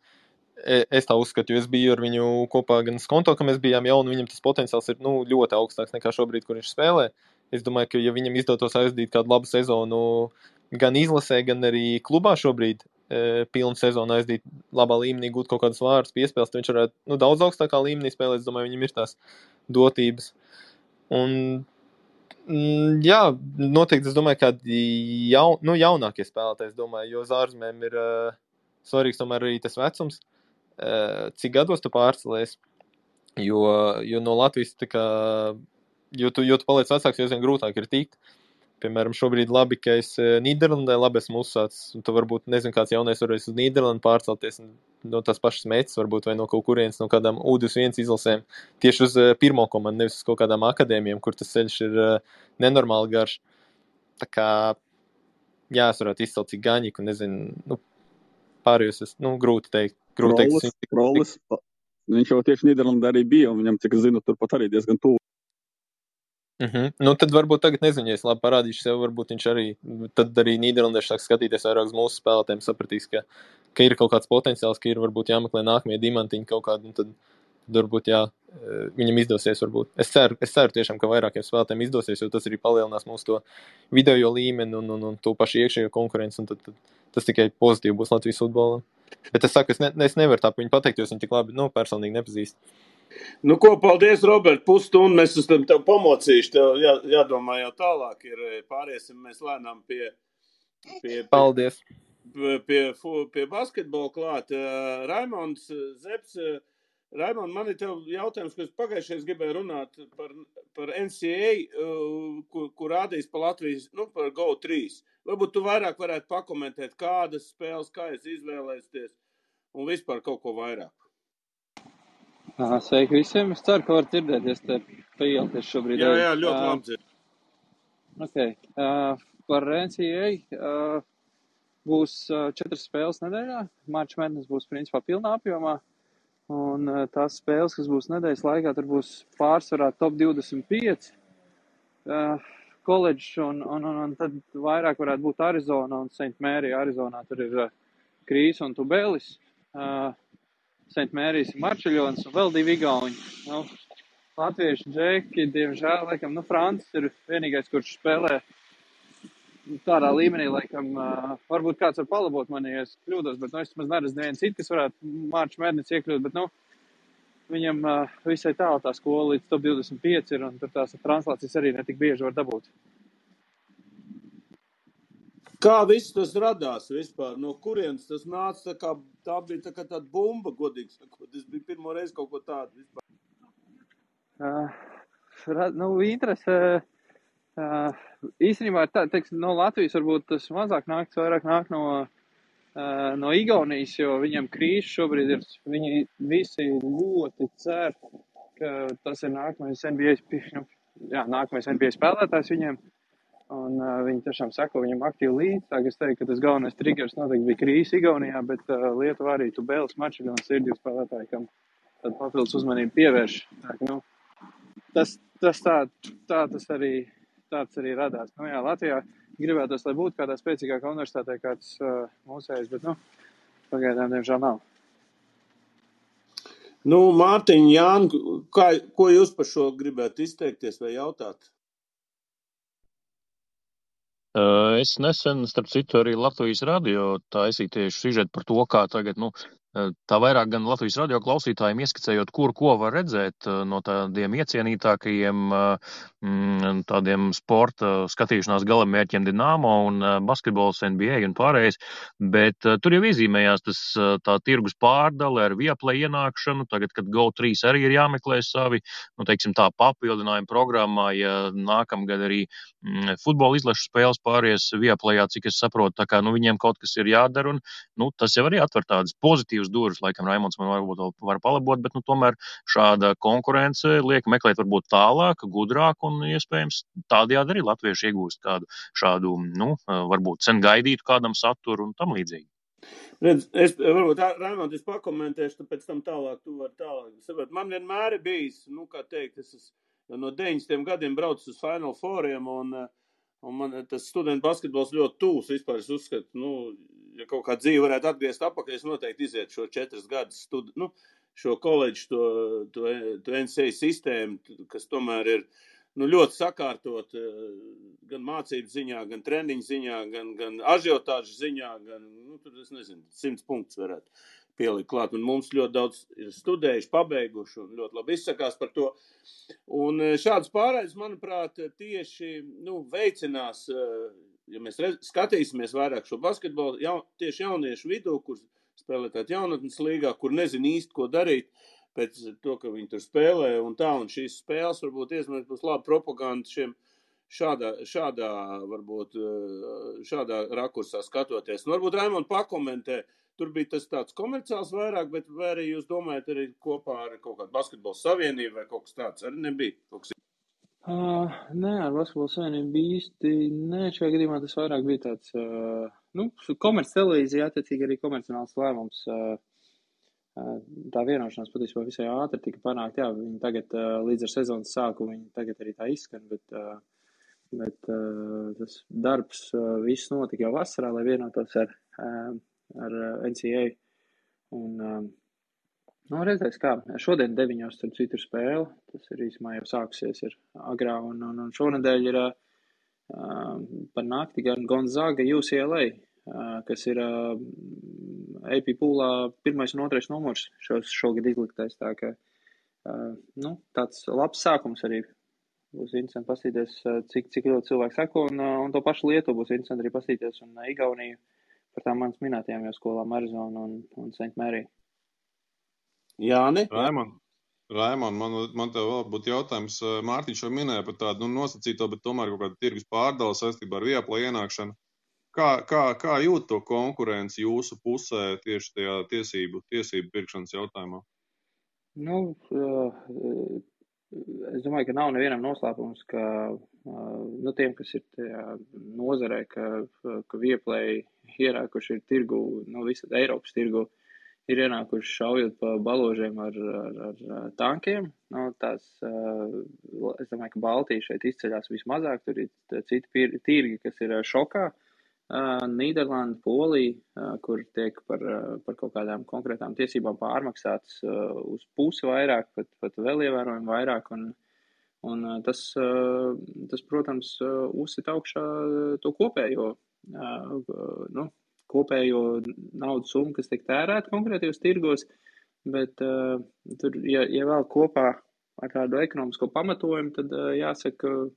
Es tā uzskatu, jo es biju ar viņu kopā gan Skonto, ka mēs bijām jauni, viņam tas potenciāls ir ļoti augstāks nekā šobrīd, kur viņš spēlē. Es domāju, ka ja viņam izdotos aizdīt kādu labu sezonu gan izlasē, gan arī klubā šobrīd, pilnu sezonu aizdīt labā līmenī, gūt kaut kādus vārdus, piespēles, tad viņš varētu daudz augstākā līmenī spēlēt. Es domāju, viņam ir tās dotības. Un, jā, noteikti es domāju, ka jaunākie spēlētāji, es domāju, jo uz ārzemēm ir svarīgs tomēr arī tas vecums, cik gados tu pārcelies, jo no Latvijas tā kā, jo tu paliec vecāks, jo vien grūtāk ir tikt. Piemēram, šobrīd labi, ka es Nīderlandē labi esmu uzsācis, un tu varbūt, nezinu, kāds jaunais varēs uz Nīderlandu pārcelties no tās pašas metas, varbūt, vai no kaut kurienes, no kādām U21 izlasēm, tieši uz pirmo komandu, nevis uz kaut kādām akadēmijām, kur tas ceļš ir nenormāli garš. Tā kā, jā, es varētu izcelt Cigaņiku, nezinu, pārējos es, grūti teikt. Krollis, viņš jau tieši Nīderlandē arī bija, un viņam, cik es zinu, turpat arī diezgan tuvu. Tad varbūt tagad nezinu, ja es labi parādīšu sev, varbūt viņš arī, tad arī Nīderlandieši sāk skatīties vairāk uz mūsu spēlētēm, sapratīs, ka ir kaut kāds potenciāls, ka ir varbūt jāmeklē nākamie diamantiņi kaut kādi, un tad varbūt, jā, viņam izdosies varbūt. Es ceru tiešām, ka vairākiem spēlētājiem izdosies, jo tas arī palielinās mūsu to video līmeni un to pašu iekšējo konkurenci, un tad tas tikai pozitīvi būs Latvijas futbolam. Bet es saku, es nevaru tā viņu pateikt, jo es viņu tik labi, personīgi nepazīstu. Nu, ko, paldies, Robert, pusstundu mēs esam tev pamocījuši, tev jādomā jau tālāk ir, pāriesim mēs lēnām pie Paldies. Pie basketbola klāt. Raimonds Zeps, Raimond, man ir tev jautājums, ko es pagājušais gribēju runāt par NCAA, kur rādīs pa Latvijas, par GO3. Varbūt tu vairāk varētu pakomentēt, kādas spēles, kā es izvēlēsties un vispār kaut ko vairāk. Sveiki visiem. Es ceru, ka var dzirdēties te paieties šobrīd. Jā, ļoti labi dzird. Okay. Par NCAA būs 4 spēles nedēļā. March Madness būs principā pilnā apjomā. Un tās spēles, kas būs nedēļas laikā, tur būs pārsvarā top 25 koledžs un tad vairāk varētu būt Arizona un St. Mary. Arizonā tur ir Krīs un Tubelis. St. Mary's Marčeļons un vēl 2 igauņi. Latviešu džeki, diemžēl, laikam, Francis ir vienīgais, kurš spēlē tādā līmenī, laikam, varbūt kāds var palabot mani, ja es kļūdos, bet, es maz neredzu neviens cits, kas varētu March Madness iekļūt, bet, viņam visai tālu tā skola līdz top 25 ir, un tur tās translācijas arī netik bieži var dabūt. Kā viss tas radās vispār? No kurienes tas nāca? Tā bija tāda bumba, godīgi sakot. Tas bija pirmo reizi kaut ko tādu vispār. Interese īstenībā ir tā, no Latvijas varbūt tas mazāk nāk, vairāk nāk no Igaunijas, jo viņam Krīs šobrīd ir, viņi visi ļoti cer, ka tas ir nākamais NBA spēlētājs viņiem. Un viņi tiešām sako viņam aktīvi līdzi. Tā, es teiktu, ka tas galvenais triggers noteikti bija Krīs Igaunijā, bet Lietuvā arī Tubelis Marčeļons ir 2 spēlētāji, kam tad papildus uzmanību pievērš. Tā, tas arī radās. Latvijā gribētos, lai būtu kādā spēcīgākā universitātē kāds mūsējs, bet, pagaidām, diemžēl nav. Mārtiņ, Jāni, ko jūs par šo gribētu izteikties vai jautāt? Es nesen, starp citu, arī Latvijas radio taisīju tieši sižetu par to, kā tagad, tā vairāk gan Latvijas radio klausītājiem ieskicējot, ko var redzēt no tādiem iecienītākajiem tādiem sporta skatīšanās galamērķiem Dinamo un basketbols NBA un pārējais, bet tur jau iezīmējās tā tirgus pārdale ar Viaplay ienākšanu, tagad, kad GO3 arī ir jāmeklē savi, teiksim tā papildinājuma programmā, ja nākamgad arī futbola izlašu spēles pāries Viaplayā, cik es saprotu, tā kā, viņiem kaut kas ir jādara, un, tas jau arī atver tādas pozitīvas durvis, laikam Raimonds man varbūt var palabot, bet, tomēr šāda konkurence liek meklēt varbūt tālāk, gudrāk, un iespējams tādējādi arī latvieši iegūst kādu šādu, varbūt sen gaidītu kādam saturu un tam līdzīgi. Redz, varbūt, Raimond, es pakomentēšu, pēc tam tālāk, tu vari tālāk. Man vienmēr ir bijis, kā teikt, es no 90 gadiem braucu uz Final Fouriem, un man tas studentu basketbols ļoti tūs. Vispār es uzskatu, ja kaut kā dzīve varētu atgriezt apakaļ, es noteikti izietu šo 4 gadus šo koledžu, to NCAA sistēmu, kas tomēr ir ļoti sakārtot gan mācību ziņā, gan treniņu ziņā, gan ažiotāžu ziņā, gan, tur es nezinu, 100 punktus varētu pielikt klāt. Un mums ļoti daudz ir studējuši, pabeiguši un ļoti labi izsakās par to. Un šāds pārējais, manuprāt, tieši veicinās, ja mēs skatīsimies vairāk šo basketbolu, tieši jauniešu vidū, kur spēlētāt jaunatnes līgā, kur nezin īsti, ko darīt pēc to, ka viņi tur spēlē un tā, un šīs spēles varbūt iesmēs būs laba propaganda šiem šādā rakursā skatoties. Varbūt Raimond pakomentē, tur bija tas tāds komerciāls vairāk, bet vai arī jūs domājat arī kopā ar kaut kādu basketbola savienību vai kaut kas tāds arī nebija? Nē, ar basketbola savienību īsti nē, šajā gadījumā tas vairāk bija tāds, komerc televīzija, attiecīgi arī komercionāls lēmums. Tā vienošanās patiesībā visai ātri tika panākt, viņi tagad līdz ar sezonas sāku, viņi tagad arī tā izskan, bet tas darbs viss notika jau vasarā, lai vienotos ar NCAA, un Nu, redzēs kā. Šodien 9:00 starp citu ir spēle. Tas ir īsumā jau sākusies ir agrā. Un šonedēļ ir par nakti gan Gonzaga UCLA, kas ir AP poolā 1. un 2. numurs šogad izliktais. Tā ka, tāds labs sākums arī. Būs interesanti pastīties, cik ļoti cilvēki sako, un to pašu Lietuvu būs interesanti arī pastīties, un Igauniju par tām manas minētajām jau skolām Arizona un St. Mary. Jāni? Raimond, man tev vēl būtu jautājums. Mārtiņš jau minēja par tādu nosacīto, bet tomēr kaut kādu tirgus pārdalu saistībā ar Viaplay ienākšanu. Kā jūt to konkurenci jūsu pusē tieši tajā tiesību pirkšanas jautājumā? Es domāju, ka nav nevienam noslēpums, ka tiem, kas ir tajā nozarē, ka Viaplay ierākuši ir tirgu, visad Eiropas tirgu, ir ienākuši šaujot pa baložiem ar tankiem. Es domāju, ka Baltija šeit izceļās vismazāk, tur ir citi tirgi, kas ir šokā. Nīderlanda, Polija, kur tiek par kaut kādām konkrētām tiesībām pārmaksāts uz pusi vairāk, pat vēl ievērojami vairāk, un tas, protams, uzsit augšā to kopējo naudas summu, kas tiek tērēta konkrētajos tirgos, bet tur, ja vēl kopā ar tādu ekonomisko pamatojumu, tad jāsaka,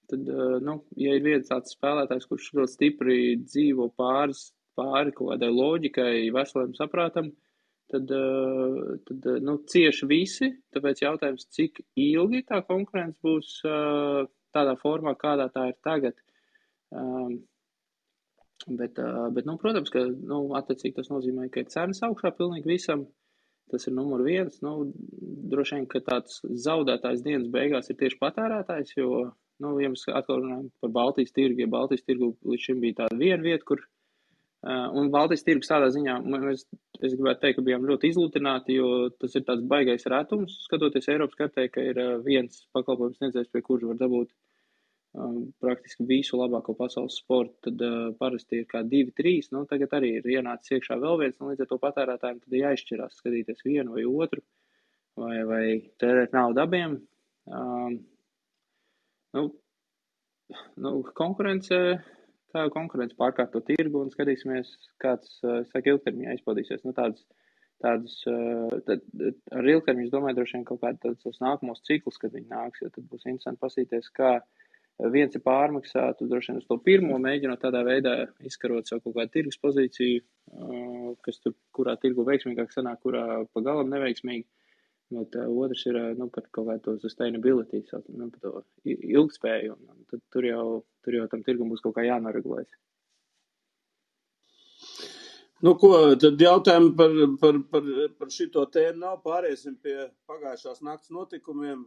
ja ir viens tāds spēlētājs, kurš ļoti stipri dzīvo pāri kaut kādai loģikai, veseliem saprātam, tad cieši visi, tāpēc jautājums, cik ilgi tā konkurence būs tādā formā, kādā tā ir tagad. Bet protams, ka, attiecīgi tas nozīmē, ka ir cenas augšā pilnīgi visam. Tas ir numur 1. Droši vien, ka tāds zaudētājs dienas beigās ir tieši patērētājs, jo, ja mēs atkal runājam par Baltijas tirgu, ja Baltijas tirgu līdz šim bija tāda viena vieta, kur, un Baltijas tirgus tādā ziņā, es gribētu teikt, ka bijām ļoti izlutināti, jo tas ir tāds baigais retums, skatoties Eiropas kartē, ka ir viens pakalpojums sniedzējs, pie kura var dabūt praktiski visu labāko pasaules sportu, tad parasti ir kā 2-3, tagad arī ir ienācis iekšā vēl viens, līdz ar to patērētājiem tad jāizšķirās, skatīties vienu vai otru, vai tērēt naudu abiem. Konkurence pārkārto tirgu un skatīsimies, kāds, ilgtermiņā izpaudīsies. Tādus, ar ilgtermiņu, es domāju, droši vien kaut kādus nākamos ciklus, kad viņi nāks, jo tad būs interesanti pasīties, kā viens ir pārmaksātu, droši vien uz to pirmo mēģinot tādā veidā izkarot savu kaut kādu tirgus pozīciju, kas tur, kurā tirgu veiksmīgāk sanāk, kurā pa galam neveiksmīgi, bet otrs ir, par kaut kādu to sustainability, par to ilgspēju, un tad tur jau tam tirgum būs kaut kā jānoregulēs. Tad jautājumi par šito tēmu nav, pāriesim pie pagājušās nakts notikumiem.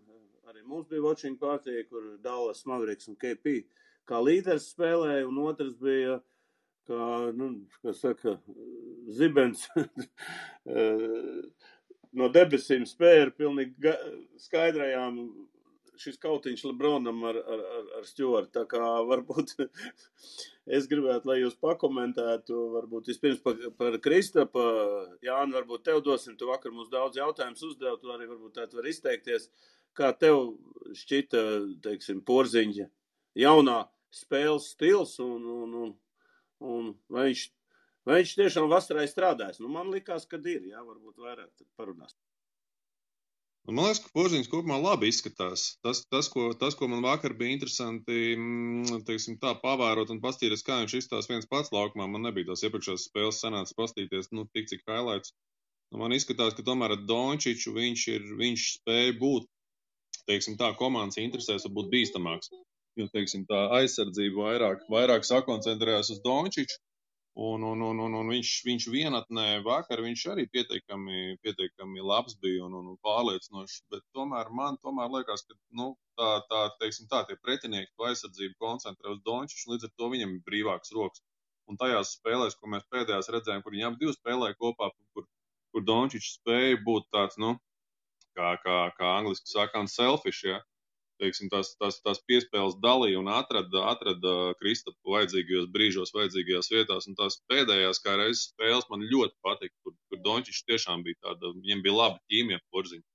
Arī mums bija watching party, kur Dallas Mavericks un KP kā līderis spēlēja, un otrs bija, zibens no debesīm spēja ar pilnīgi skaidrajām šis kautiņš Lebronam ar Stewartu. Tā kā varbūt es gribētu, lai jūs pakomentētu, varbūt vispirms par Kristapu. Jāni, varbūt tev dosim, tu vakar mums daudz jautājumus uzdev, tu arī varbūt tā var izteikties. Kā tev šķita, teiksim, Porziņa jaunā spēles stils un vai viņš tiešām vasarai strādājas? Man likās, ka ir, varbūt vairāk parunās. Man liekas, ka Porziņš kopumā labi izskatās. Tas, ko man vakar bija interesanti, teiksim tā, pavērot un pastīties, kā viņš izstās viens pats laukumā. Man nebija tās iepriekšējās spēles sanāca pastīties, tik cik highlights. Man izskatās, ka tomēr ar Dončiču viņš spēja būt, teiksim tā, komandas interesēs var būt bīstamāks. Jo, teiksim tā, aizsardzība vairāk sakoncentrējās uz Dončiču, un viņš vienatnē vakar, viņš arī pietiekami labs bija un pārliecinošs, bet tomēr man liekas, ka, teiksim tā, tie pretinieki to aizsardzību koncentrē uz Dončiču, līdz ar to viņam ir brīvāks rokas. Un tajās spēlēs, ko mēs pēdējās redzējām, kur viņi ap divi spēlēja kopā, kur Dončičs spēja būt tāds, kā angliski sakām, selfish, ja? Teiksim, tās piespēles dalīja un atrada Kristapu vajadzīgajos brīžos, vajadzīgajās vietās, un tās pēdējās kā reizes spēles man ļoti patika, kur kur Dončičs tiešām bija tāda, viņam bija laba ķīmija porziņa.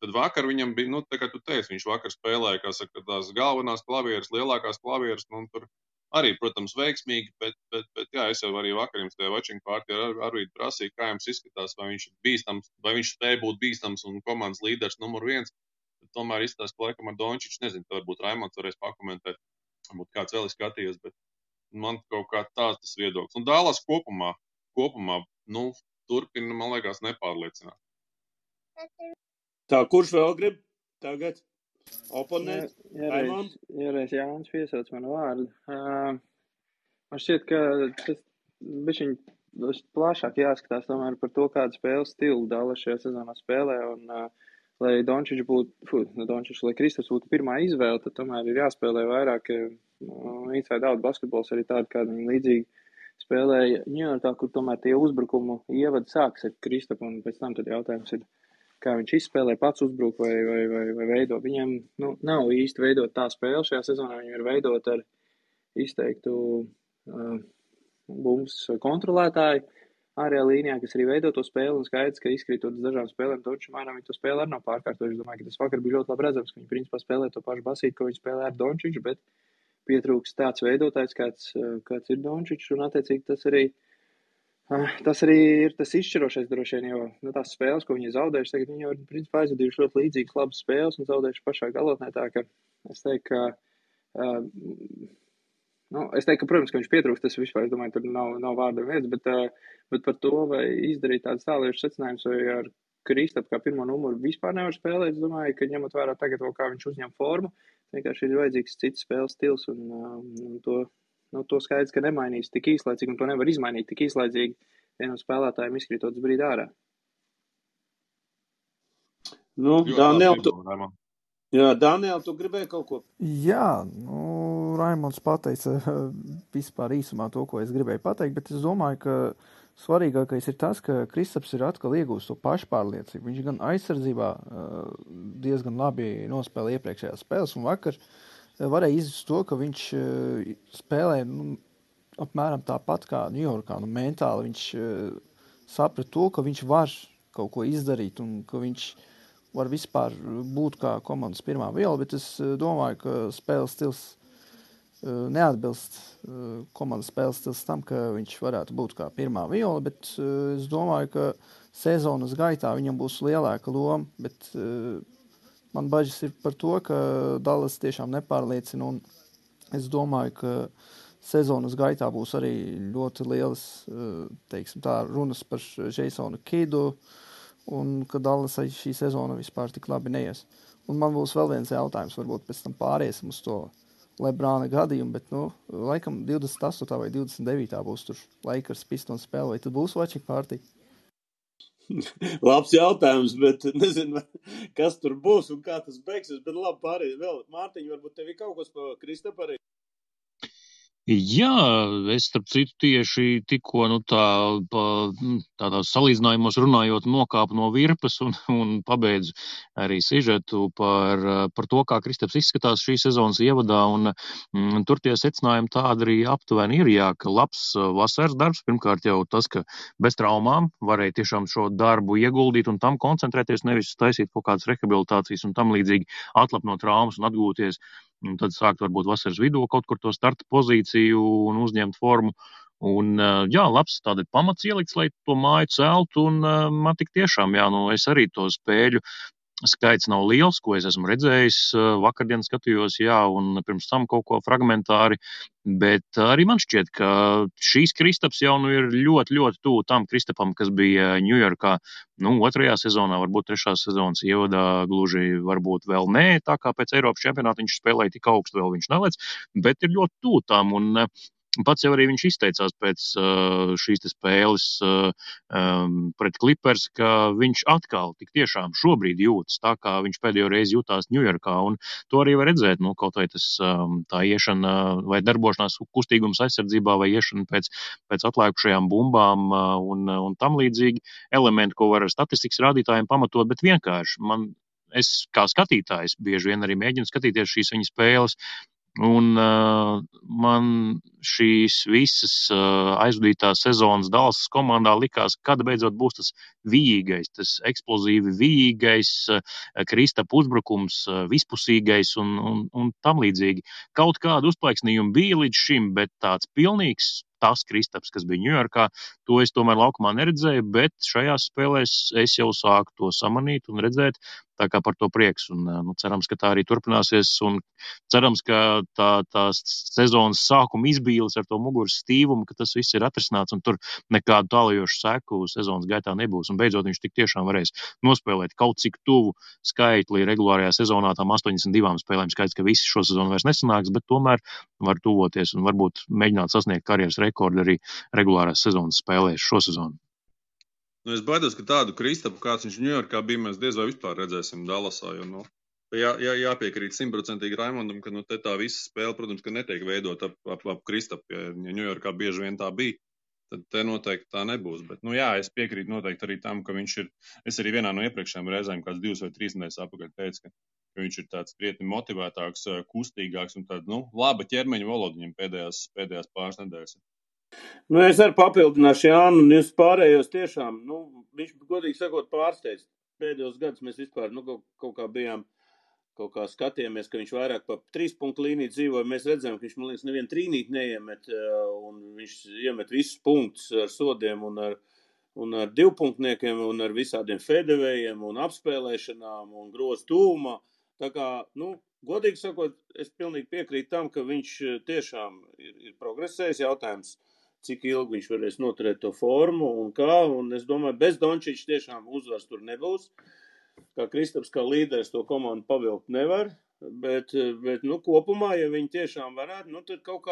Tad vakar viņam bija, tā kā tu teici, viņš vakar spēlēja, kā saka, tās galvenās klavieres, lielākās klavieres, tur arī, protams, veiksmīgi, bet jā, es jau arī vakar jums tajā watching party arī prasīju, kā jums izskatās, vai viņš ir bīstams, vai viņš spēj būt bīstams un komandas līderis numur 1. Tomēr izskatās, ka laikam ar Dončiču, nezinu, varbūt Raimonds varēs pakomentēt, varbūt kāds vēl ir skatījies, bet man kaut kā tāds tas viedoklis. Un Dallas kopumā, turpina, man liekas, nepārliecināt. Tā, kurš vēl grib tagad oponēt? Iereiz Jānis piesauc manu vārdu. Man šķiet, ka tas bišķiņ plašāk jāskatās tomēr par to, kādu spēles stilu Dallas šajā sezonā spēlē, un lai Dončičs būtu, lai Kristaps būtu pirmā izvēle, tad tomēr ir jāspēlē vairāk inside out basketbols, arī tādi, kādi viņi līdzīgi spēlēja Ņujorkā, kur tomēr tie uzbrukumu ievadi sāks ar Kristapu, un pēc tam tad jautājums ir, kā viņš izspēlē, pats uzbruk vai veido. Viņam nav īsti veidot tā spēle šajā sezonā, viņam ir veidot ar izteiktu bumbas kontrolētāju ārējā līnijā, kas arī veido to spēli, un skaidrs, ka izkrītot uz dažām spēlēm, Dončičs mainām viņa to spēli arī nav pārkārtojuši. Es domāju, ka tas vakar bija ļoti labi redzams, ka viņi principā spēlē to pašu basīti, ko viņi spēlē ar Dončiču, bet pietrūks tāds veidotājs, kāds ir Dončičs, un attiecīgi tas arī ir tas izšķirošais droši vien, jo tās spēles, ko viņi zaudējuši, tagad viņi jau ir principā aizvadījuši ļoti līdzīgas labas spēles un zaudējuši pašā galotnē, tā ka es teiktu, ka, protams, ka viņš pietrūks, tas vispār, es domāju, tur nav vārda vietas, bet par to, vai izdarīt tādas tālējušas secinājumus, vai ar Kristapu kā pirmo numuru vispār nevar spēlēt, es domāju, ka ņemot vērā tagad vēl, kā viņš uzņem formu, vienkārši ir vajadzīgs cits spēles stils, un to skaidrs, ka nemainīs tik īslaicīgi, un to nevar izmainīt tik īslaicīgi vienam spēlētājiem izkrītot uz brīdi ārā. Daniel, tu gribēji kaut ko? Jā, Raimonds pateica vispār īsumā to, ko es gribēju pateikt, bet es domāju, ka svarīgākais ir tas, ka Kristaps ir atkal iegūst to pašpārliecību. Viņš gan aizsardzībā diezgan labi nospēlē iepriekšējās spēles, un vakar varēja izjust to, ka viņš spēlē apmēram tāpat kā Ņujorkā. Mentāli viņš saprata to, ka viņš var kaut ko izdarīt un ka viņš var vispār būt kā komandas pirmā viela, bet es domāju, ka spēles stils neatbilst komandas spēles stils tam, ka viņš varētu būt kā pirmā viela, bet es domāju, ka sezonas gaitā viņam būs lielāka loma, bet man bažas ir par to, ka Dallas tiešām nepārliecina, un es domāju, ka sezonas gaitā būs arī ļoti lielas, teiksim tā, runas par Jasonu Kidu, un ka Dallas šī sezona vispār tik labi neies. Un man būs vēl viens jautājums, varbūt pēc tam pāriesim uz to Lebrāna gadījumu, bet, laikam 28. vai 29. būs tur Lakers Pistons spēle, vai tad būs watching party? Labs jautājums, bet nezinu, kas tur būs un kā tas beigsies, bet labi pārējie vēl. Mārtiņ, varbūt tev ir kaut kas pa Kristapu arī? Jā, es starp citu tieši tikko tādās salīdzinājumos runājot nokāpu no virpas un pabeidzu arī sižetu par to, kā Kristaps izskatās šī sezonas ievadā, un tur tie secinājumi tādi arī aptuveni ir, jā, ka labs vasaras darbs, pirmkārt jau tas, ka bez traumām varēja tiešām šo darbu ieguldīt un tam koncentrēties, nevis taisīt kaut kādas rehabilitācijas un tam līdzīgi atlapt no traumas un atgūties. Un tad sākt varbūt vasaras vidū kaut kur to starta pozīciju un uzņemt formu. Un, jā, labs tāda pamats ielikts, lai to māju celtu, un man tik tiešām, jā, es arī to spēļu skaits nav liels, ko es esmu redzējis. Vakardien skatījos, jā, un pirms tam kaut ko fragmentāri, bet arī man šķiet, ka šīs Kristaps jau ir ļoti, ļoti tuvu tam Kristapam, kas bija Ņujorkā, otrajā sezonā, varbūt trešā sezonas ievadā, gluži varbūt vēl nē, tā kā pēc Eiropas čempionāta viņš spēlēja tik augstu, vēl viņš nelec, bet ir ļoti tuvu tam, un pats jau arī viņš izteicās pēc šīs spēles pret Clippers, ka viņš atkal tik tiešām šobrīd jūtas tā, kā viņš pēdējo reizi jutās Ņujorkā, un to arī var redzēt, kaut vai tas tā iešana vai darbošanās kustīgums aizsardzībā vai iešana pēc atlēkušajām bumbām un tam līdzīgi elementi, ko var ar statistikas rādītājiem pamatot, bet vienkārši es kā skatītājs bieži vien arī mēģinu skatīties šīs viņa spēles, Un man šīs visas aizvadītās sezonas Dallasas komandā likās, kad beidzot būs tas vijīgais, tas eksplozīvi vijīgais, Kristapa uzbrukums, vispusīgais un tam līdzīgi. Kaut kādu uzplaiksnījumu bija līdz šim, bet tāds pilnīgs tas Kristaps, kas bija Ņujorkā, to es tomēr laukumā neredzēju, bet šajās spēlēs es jau sāku to samanīt un redzēt, tā kā par to prieks. Un, cerams, ka tā arī turpināsies un cerams, ka tās sezonas sākuma izbīles ar to muguras stīvumu, ka tas viss ir atrisināts un tur nekādu tālajošu seku sezonas gaitā nebūs. Un beidzot viņš tik tiešām varēs nospēlēt kaut cik tuvu skaitli regulārajā sezonā, tām 82 spēlēm. Skaidrs, ka visi šo sezonu vairs nesanāks, bet tomēr var tuvoties un varbūt mēģināt sasniegt karjeras rekordu arī regulārās sezonas spēlēs šo sezonu. Nu, es baidos, ka tādu Kristapu, kāds viņš Ņujorkā bija, mēs diez vai vispār redzēsim Dallasā, jo, jāpiekrīt 100% Raimondam, ka tā visa spēle, protams, ka netiek veidot ap Kristapu, ja Ņujorkā bieži vien tā bija, tad te noteikti tā nebūs. Bet, es piekrītu noteikti arī tam, ka viņš ir, es arī vienā no iepriekšējām reizēm, kāds 2 vai 3 nedēļas apakaļ teicu, ka viņš ir tāds krietni motivētāks, kustīgāks un tāda, laba ķermeņa valoda viņam pēdējās pāris nedēļas. Es arī papildināšu Jānu, un jūs pārējos tiešām, viņš, godīgi sakot, pārsteidz. Pēdējos gadus mēs vispār, kaut kā bijām, kaut kā skatījāmies, ka viņš vairāk pa 3 punktu līniju dzīvoja. Mēs redzējām, ka viņš, man liekas, nevienu trīnīt neiemet, un viņš iemet visus punktus ar sodiem un ar 2-punktniekiem, un ar visādiem fedevējiem, un apspēlēšanām, un grozu tūmā. Tā kā, godīgi sakot, es pilnīgi piekrītu tam, ka viņš tiešām ir progresējis. Jautājums, cik ilgi viņš varēs noturēt to formu un kā, un es domāju, bez Dončiča tiešām uzvars tur nebūs. Kā Kristaps, kā līderis to komandu pavilkt nevar, bet kopumā, ja viņi tiešām varētu, tad kaut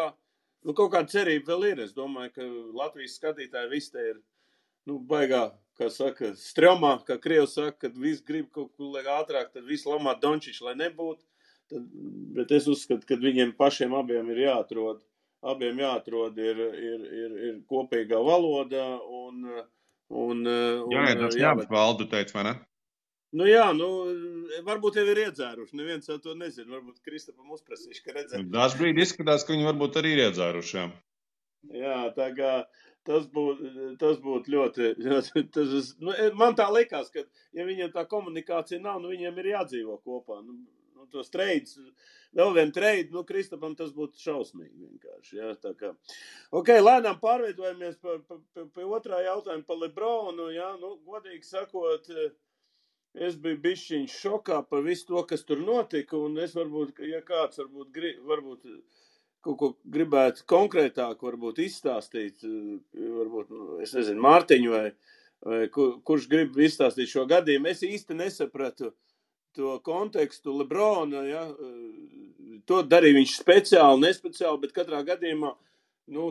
kāda cerība vēl ir. Es domāju, ka Latvijas skatītāji visi te ir, baigā, kā saka, stromā, kā Krievs saka, kad visi grib kaut ko ātrāk, tad visi lamā Dončiču, lai nebūtu. Bet es uzskatu, ka viņiem pašiem abiem ir jāatrod. Abiem jāatrod ir kopīgā valoda tas ņemt valdu, teicu, vai ne? Varbūt jau ir iedzēruši, neviens jau to nezina, varbūt Kristapam uzprasīšu, ka redzēt. Dažbrīd izskatās, ka viņi varbūt arī ir iedzēruši, jā. Jā, tā kā tas būtu ļoti, man tā likās, ka ja viņiem tā komunikācija nav, viņiem ir jādzīvo kopā, tos treids, vēl vien treidu, Kristapam tas būtu šausmīgi vienkārši, jā, tā kā. Lēnām pārveidojamies pie otrā jautājuma par Lebronu, jā, godīgi sakot, es biju bišķiņš šokā par visu to, kas tur notika, un es varbūt, ja kāds varbūt kaut ko gribētu konkrētāk varbūt izstāstīt, varbūt, es nezinu, Mārtiņu vai kurš grib izstāstīt šo gadījumu, es īsti nesapratu to kontekstu Lebrona, ja, to darīja viņš speciāli, nespeciāli, bet katrā gadījumā,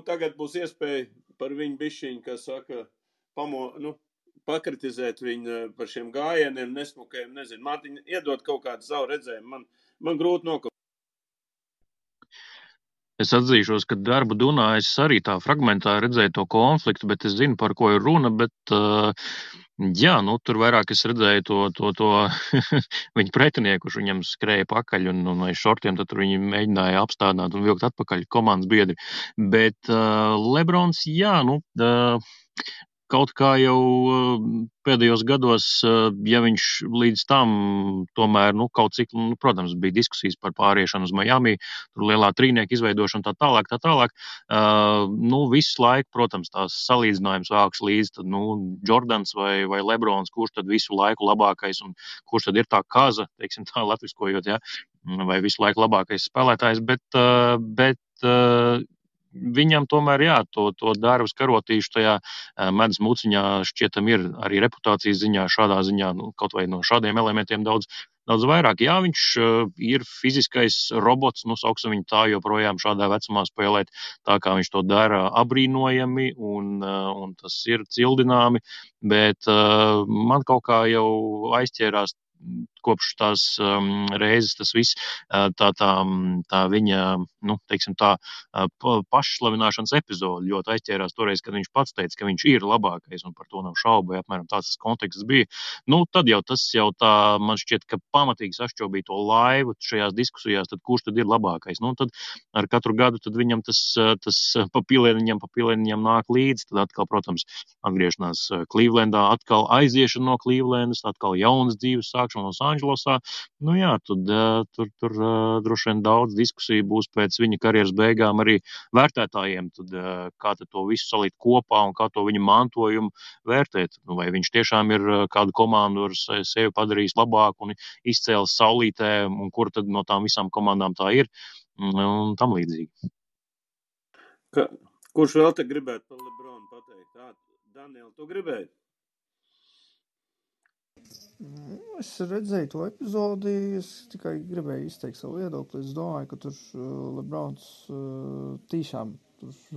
tagad būs iespēja par viņu bišķiņu, kā saka, pakritizēt viņu par šiem gājieniem, nesmukajiem, nezinu, Mārtiņ, iedot kaut kādu savu redzējumu, man grūti nokaut. Es atzīšos, ka darbu Dunā es arī tā fragmentā redzēju to konfliktu, bet es zinu, par ko ir runa, bet tur vairāk es redzēju to viņa pretinieku, kurš viņam skrēja pakaļ un aiz šortiem, tad tur viņi mēģināja apstādināt un vilkt atpakaļ komandas biedri. Bet Lebrons, kaut kā jau pēdējos gados, ja viņš līdz tam tomēr, kaut cik, protams, bija diskusijas par pāriešanu uz Miami, tur lielā trīnieka izveidošanu tā tālāk, visu laiku, protams, tās salīdzinājums vāks līdz, tad, Jordans vai Lebrons, kurš tad visu laiku labākais un kurš tad ir tā kaza, teiksim tā, latviskojot, ja, vai visu laiku labākais spēlētājs, bet viņam tomēr, to darbas karotīšu tajā medus muciņā šķietam ir arī reputācijas ziņā, šādā ziņā, kaut vai no šādiem elementiem daudz vairāk. Jā, viņš ir fiziskais robots, sauksim viņu tā, joprojām šādā vecumā spēlēt tā, kā viņš to dara, abrīnojami un tas ir cildināmi, bet man kaut kā jau aizķērās kopš tās reizes tas viss, tā viņa, teiksim tā, pašslavināšanas epizode ļoti aizķērās toreiz, kad viņš pats teica, ka viņš ir labākais, un par to nav šaubu, ja apmēram tāds konteksts bija. Tad jau tas tā, man šķiet, ka pamatīgi sašķobīja to laivu šajās diskusijās, tad kurš tad ir labākais? Tad ar katru gadu tad viņam tas papilēniņam nāk līdzi, tad atkal, protams, atgriešanās Klīvlendā, atkal aiziešana no Klīvlendas, atkal jaunas dzīves sākšana Losandželosā. Tur droši vien daudz diskusiju būs pēc viņa karjeras beigām arī vērtētājiem, tad kā tad to visu salikt kopā un kā to viņa mantojumu vērtēt. Vai viņš tiešām ir kādu komandu ar sevi padarījis labāku un izcēlis saulītē, un kur tad no tām visām komandām tā ir, un tam līdzīgi. Kurš vēl te gribētu par Lebronu pateikt? Daniel, tu gribēji? Es redzēju to epizodi, es tikai gribēju izteikt savu viedokli. Es domāju, ka tur Lebrons tiešām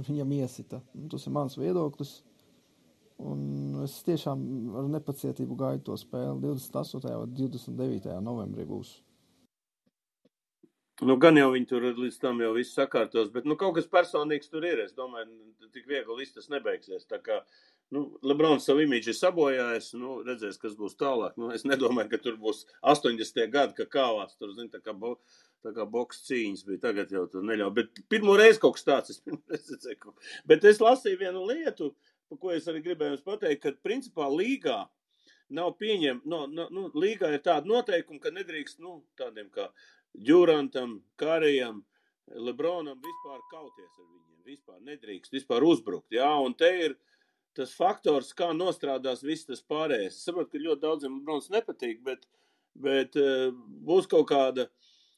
viņam iesita. Tas ir mans viedoklis. Un es tiešām ar nepacietību gaidu to spēli 28. vai 29. novembrī būs. Gan jau viņi tur līdz tam jau viss sakārtos, bet kaut kas personīgs tur ir. Es domāju, tik viegli viss tas nebeigsies. Tā kā Lebrons savu imidžu ir sabojājis, redzēs, kas būs tālāk. Es nedomāju, ka tur būs 80. gadi, ka kāvās tur, tā kā boks cīņas bija. Tagad jau tur neļauj. Bet pirmo reizi kaut kas tāds. Bet es lasīju vienu lietu, par ko es arī gribēju jums pateikt, ka principā līgā nav līgā ir tāda noteikuma, ka nedrīkst, tādiem kā Djurantam, Karijam, Lebronam vispār kauties ar viņiem. Vispār nedrīkst, vispār uzbrukt. Jā, un te ir tas faktors, kā nostrādās viss tas pārējais. Es saprotu, ka ļoti daudziem Lebrons nepatīk, bet būs kaut kāda,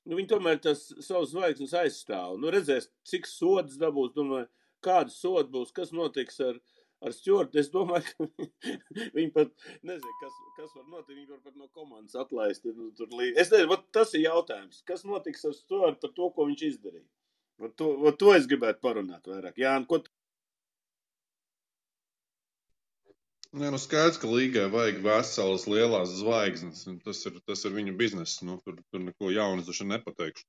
viņi tomēr tas savus zvaigznes aizstāv. Redzēs, cik sodas dabūs, domāju, kāda soda būs, kas notiks ar Stewartu. Es domāju, ka viņi pat, nezinu, kas var notikt, viņi var pat no komandas atlaist. Es nezinu, tas ir jautājums. Kas notiks ar Stewartu par to, ko viņš izdarīja? To es gribētu parunāt vairāk. Jāni, ko skaidrs, ka līgai vajag veselas lielās zvaigznes. Tas ir viņu bizness. Tur neko jaunas taču nepateikšu.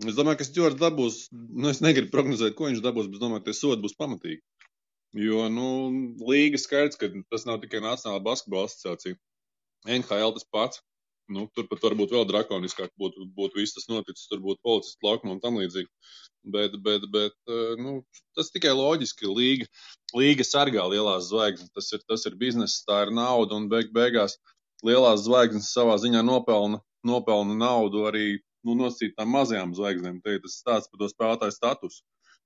Es domāju, ka Stewarts dabūs, es negribu prognozēt, ko viņš dabūs, bet es domāju, ka tie sodi būs pamatīgi. Jo, līga skaidrs, ka tas nav tikai Nacionālā basketbola asociācija. NHL tas pats. Tur pat varbūt vēl drakoniskāk būtu viss tas noticis, tur būtu policistu laukuma un tam līdzīgi. Bet tas tikai loģiski. Līga sargā lielās zvaigznes. Tas ir bizness, tā ir nauda, un beigās lielās zvaigznes savā ziņā nopelna naudu arī nosacītām mazajām zvaigznēm. Te ir tas stāsts par to spēlētāju statusu.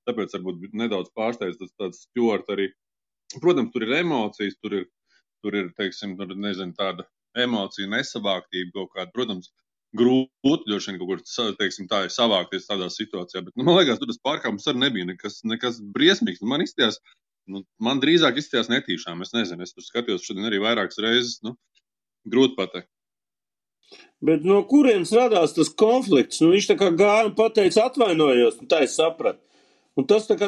Tāpēc varbūt nedaudz pārsteidz tāds Stewart arī. Protams, tur ir emocijas, tur ir, teiksim, tāda emocija nesavāktība kaut kāda. Protams, grūti droši vien kaut kur, teiksim, tā ir savākties tādā situācijā, bet, man liekas, tur tas pārkāpums arī nebija nekas briesmīgs. Man drīzāk izstījās netīšām, es nezinu, es tur skatījos šodien arī vairākas reizes, grūti pateikt. Bet no kurienes radās tas konflikts? Viņš tā kā gāja un pateica atvainojos, tā es sapratu. Un tas tā kā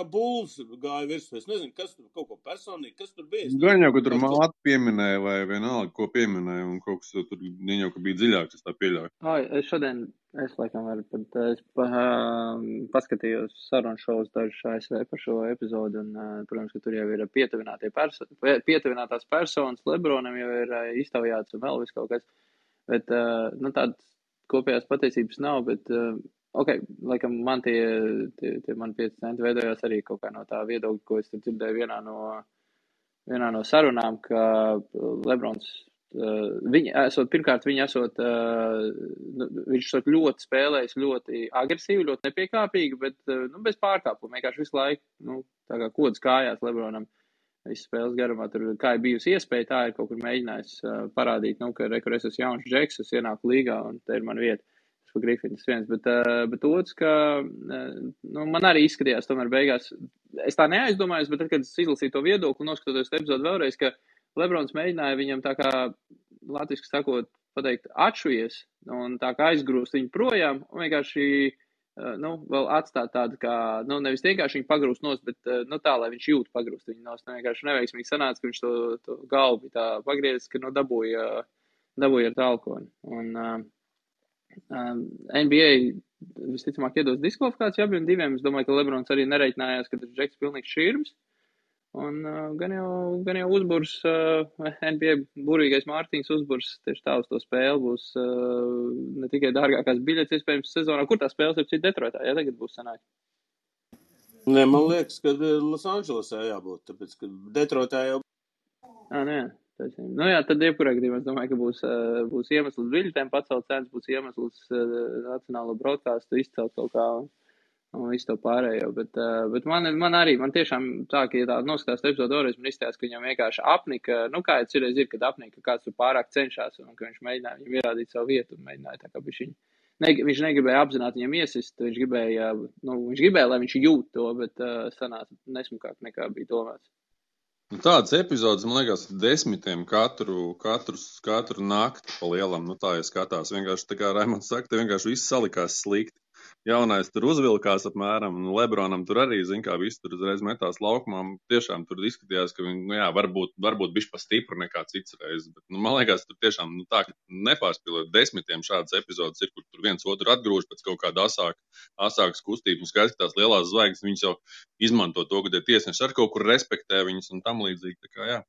bulls gāja virsū. Es nezinu, kas tur kaut ko personīgi, kas tur bija. Gan jau, ka tur māti pieminēja vai vienalga, ko pieminēja, un kaut kas tur jau, ka bija dziļāks, es tā pieļauju. Es laikam paskatījos sarunu šovus dažus ASV par šo epizodu, un, protams, ka tur jau ir pietuvinātās personas, Lebronam jau ir iztaujāts un vēl viss kaut kas. Bet, tādas kopējās patiesības nav, bet... laikam man tie man 5 centi veidojās arī kaut kā no tā viedokļa, ko es dzirdēju vienā no sarunām, ka Lebrons, viņš esot ļoti spēlējis, ļoti agresīvi, ļoti nepiekāpīgi, bet bez pārkāpuma, vienkārši visu laiku, tā kā kods kājās Lebronam. Visas spēles garumā tur, kā ir bijusi iespēja, tā ir kaut kur mēģinājis parādīt, ka es esmu jauns džeks, es ienāku līgā un te ir man vieta. Grifinis viens, bet otrs, ka man arī izskatījās tomēr beigās, es tā neaizdomājos, bet tad, kad es izlasīju to viedokli, noskatoties epizodu vēlreiz, ka Lebrons mēģināja viņam tā kā, latviski sakot, pateikt, atšujies un tā kā aizgrūst viņu projām un vienkārši, vēl atstāt tādu kā, nevis vienkārši viņu pagrūst nost, bet, tā, lai viņš jūt pagrūst viņu nost, vienkārši neveiksmīgi sanāca, ka viņš to galvu tā pagriezis, ka, dabūja dabūja ar tālkoni. Un NBA visticamāk iedos diskvalifikāciju abiem diviem. Es domāju, ka Lebrons arī nereiķinājās, ka tas Džeks pilnīgs šķirms. Un gan jau uzburs, NBA burīgais Mārtiņš uzburs tieši tā uz to spēli būs ne tikai dārgākās biļetes iespējams sezonā. Kur tā spēles ir cita Detroitā? Jā, tagad būs sanāk. Nē, man liekas, ka Losandželosā jābūt, tāpēc, ka Detroitā jau... Nē, taisnība. Nu jā, tad jebkurā gadījumā es domāju, ka būs iemesls biļetēm pacelt cenas, būs iemesls nacionālo broadcastu izcelt kaut kā un visu to pārējo, bet man tiešām tā, ka, ja tā noskatās epizodu vēlreiz, man izstājās, ka viņam vienkārši apnika, kā jau cirreiz ir, kad apnika, kāds tur pārāk cenšās, un ka viņš mēģināja viņam ierādīt savu vietu, un mēģināja tā kā viņš negribēja apzināti viņam iesist, viņš gribēja, lai viņš jūt to, bet sanāca nesmukāk nekā bija domāts. Tādas epizodes, man liekas, 10 katru nakti pa lielam, tā ja skatās, vienkārši tā kā Raimonds saka, te vienkārši viss salikās slikti. Jaunais tur uzvilkās apmēram, un Lebronam tur arī, viss tur uzreiz metās laukumā. Tiešām tur izskatījās, ka viņi, varbūt bišķi pa stipru nekā cits reizes, bet, man liekas, tur tiešām, tā, ka nepārspīlot 10 šādas epizodes ir, kur tur viens otru atgrūž pēc kaut kāda asākas kustības, un skaidrs, ka tās lielās zvaigznes, viņas jau izmanto to, ka tie tiesneši ar kaut kur respektē viņus un tam līdzīgi, tā kā jā.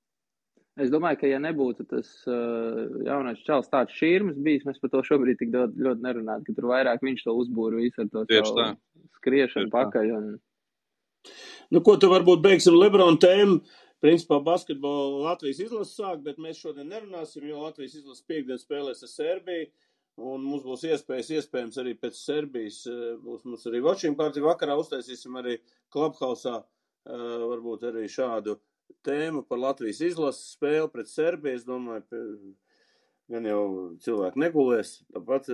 Es domāju, ka ja nebūtu tas jaunais čalis tāds šķirms bijis, mēs par to šobrīd tik ļoti nerunātu, ka tur vairāk viņš to uzbūra visu ar to savu skriešanu pakaļ. Ko tu varbūt beigsim Lebrona tēmu? Principā basketbolu Latvijas izlases sāk, bet mēs šodien nerunāsim, jo Latvijas izlases piekdien spēlēs ar Serbiju, un mums būs iespējams arī pēc Serbijas, būs mums arī watching party vakarā, uztaisīsim arī Clubhouse-ā, varbūt arī šādu tēmu par Latvijas izlases spēli pret Serbiju. Es domāju, gan jau cilvēki negulēs, tāpat,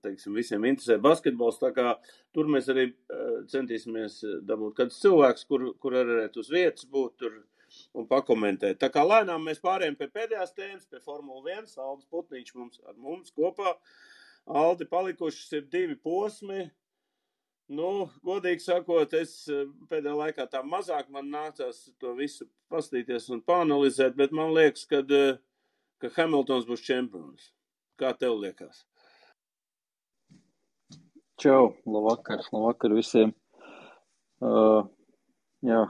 teiksim, visiem interesē basketbols, tā kā tur mēs arī centīsimies dabūt kādus cilvēkus, kur arī uz vietas būt tur un pakomentēt. Tā kā lēnām mēs pārējām pie pēdējās tēmas, pie Formula 1, Aldis Putniņš ar mums kopā. Aldi, palikušas ir 2 posmi. Godīgi sakot, es pēdējā laikā tā mazāk man nācās to visu pastīties un pāanalizēt, bet man liekas, ka Hamiltons būs čempions. Kā tev liekas? Čau, labvakar visiem.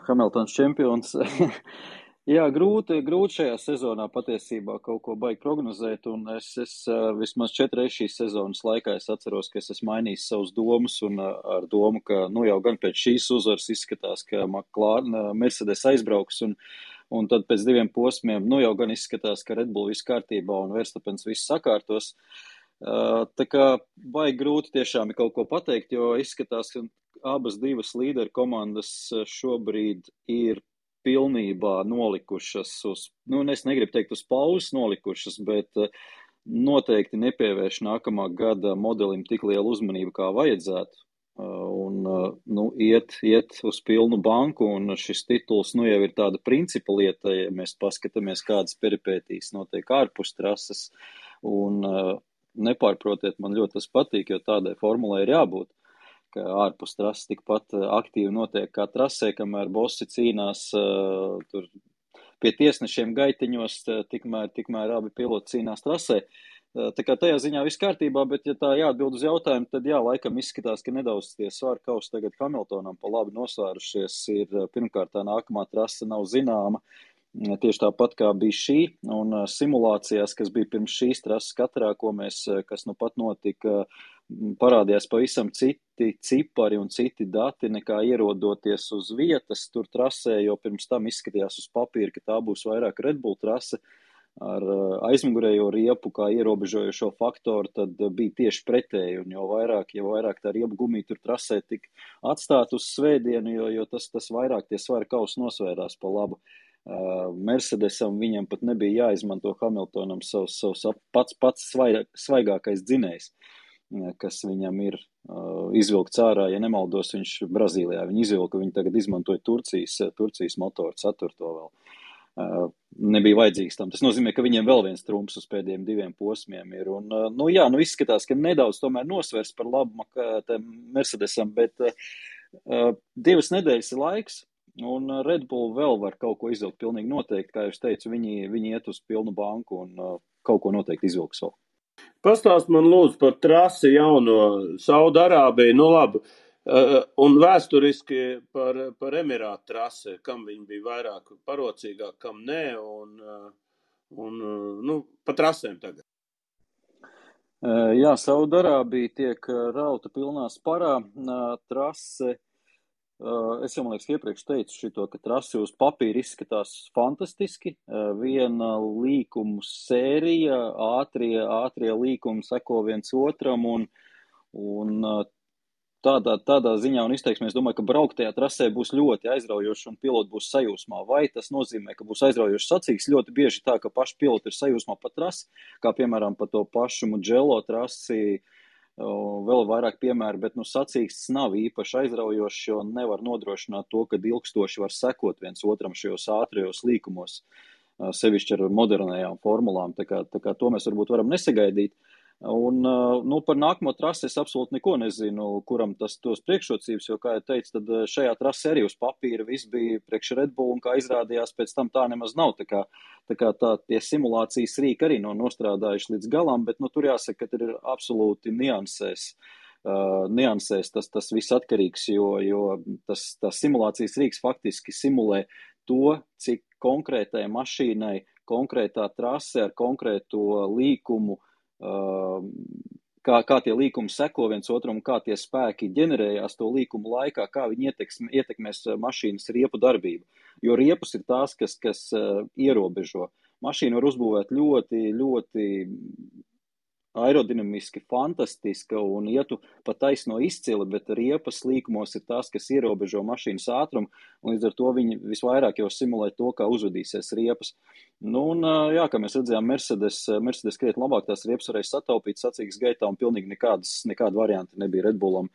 Hamiltons čempions. Jā, grūti šajā sezonā patiesībā kaut ko baigi prognozēt, un es vismaz 4 reizes šīs sezonas laikā es atceros, ka es esmu mainījis savus domas, un ar domu, ka jau gan pēc šīs uzvaras izskatās, ka Mercedes aizbrauks, un tad pēc 2 posmiem, jau gan izskatās, ka Red Bull viss kārtībā un Verstappens viss sakārtos. Tā kā baigi grūti tiešām kaut ko pateikt, jo izskatās, ka abas divas līderu komandas šobrīd ir pilnībā nolikušas es negribu teikt uz pauzes nolikušas, bet noteikti nepievērš nākamā gada modelim tik lielu uzmanību, kā vajadzētu. Un iet uz pilnu banku, un šis tituls jau ir tāda principa lieta, ja mēs paskatāmies, kādas peripētīs notiek ārpus trases, un nepārprotiet, man ļoti tas patīk, jo tādai formulai ir jābūt, ka ārpus trases tikpat aktīvi notiek kā trasē, kamēr bossi cīnās tur pie tiesnešiem gaitiņos, tikmēr abi piloti cīnās trasē. Tā kā tajā ziņā viss kārtībā, bet ja tā jāatbild uz jautājumu, tad laikam izskatās, ka nedaudz tie svaru kausi tagad Hamiltonam pa labi nosvērušies. Pirmkārt, tā nākamā trase nav zināma, tieši tāpat kā bija šī, un simulācijās, kas bija pirms šīs trases katrā, kas nu pat notika, parādījās pavisam citi cipari un citi dati nekā ierodoties uz vietas tur trasē, jo pirms tam izskatījās uz papīra, ka tā būs vairāk Red Bull trase ar aizmugurējo riepu kā ierobežojošo faktoru, tad bija tieši pretēji, un jo vairāk tā riepu gumija tur trasē tik atstāt uz svētdienu, jo tas vairāk tie svaru kausi nosvērās pa labu. Mercedesam viņam pat nebija jāizmanto Hamiltonam savs pats svaigākais dzinējs, kas viņam ir izvilkts ārā, ja nemaldos, viņš Brazīlijā viņu izvilka, viņi tagad izmantoja Turcijas motoru, 4. vēl. Nebija vajadzīgs tam. Tas nozīmē, ka viņiem vēl viens trumps uz pēdējiem 2 posmiem ir. Un, izskatās, ka nedaudz tomēr nosvers par labu Mercedesam, bet 2 nedēļas ir laiks, un Red Bull vēl var kaut ko izvilkt pilnīgi noteikti. Kā jūs teicu, viņi iet uz pilnu banku, un kaut ko noteikti izvilks vēl. Pastāst man lūdzu par trasi jauno Saudarābiju, nu labi, un vēsturiski par Emirātu trasi, kam viņi bija vairāk parocīgāk, kam nē, un pa trasēm tagad. Jā, Saudarābija tiek rauta pilnā sparā, trase. Es jau, man liekas, iepriekš teicu šito, ka trasi uz papīra izskatās fantastiski. Viena līkumu sērija, ātrie līkumi seko viens otram un tādā ziņā un izteiksmē es domāju, ka brauktajā trasē būs ļoti aizraujoši un piloti būs sajūsmā. Vai tas nozīmē, ka būs aizraujoši sacīks? Ļoti bieži tā, ka paši piloti ir sajūsmā pa trasi, kā piemēram pa to pašu Mugello trasi, vēl vairāk piemēru, bet sacīksts nav īpaši aizraujošs, jo nevar nodrošināt to, ka ilgstoši var sekot viens otram šajos ātrajos līkumos, sevišķi ar modernajām formulām, tā kā to mēs varbūt varam nesagaidīt. Un par nākamo trasi es absolūti neko nezinu, kuram tos priekšrocības, jo, kā jau teicu, tad šajā trasi arī uz papīra viss bija priekš Red Bull, un kā izrādījās, pēc tam tā nemaz nav. Tā kā tie simulācijas rīki arī nav nostrādājuši līdz galam, bet tur jāsaka, ka ir absolūti niansēs tas viss atkarīgs, jo tas simulācijas rīks faktiski simulē to, cik konkrētai mašīnai, konkrētā trase ar konkrēto līkumu, kā tie līkumi seko viens otram, kā tie spēki ģenerējās to līkumu laikā, kā viņi ietekmēs mašīnas riepu darbību. Jo riepus ir tās, kas ierobežo. Mašīna var uzbūvēt ļoti, ļoti aerodinamiski, fantastiska un ietu pa taisno izcili, bet riepas līkumos ir tās, kas ierobežo mašīnas ātrumu, un līdz ar to viņi visvairāk jau simulē to, kā uzvedīsies riepas. Jā, kā mēs redzējām, Mercedes krietni labāk tās riepas varēja sataupīt sacīgas gaitā, un pilnīgi nekāda varianta nebija Red Bullam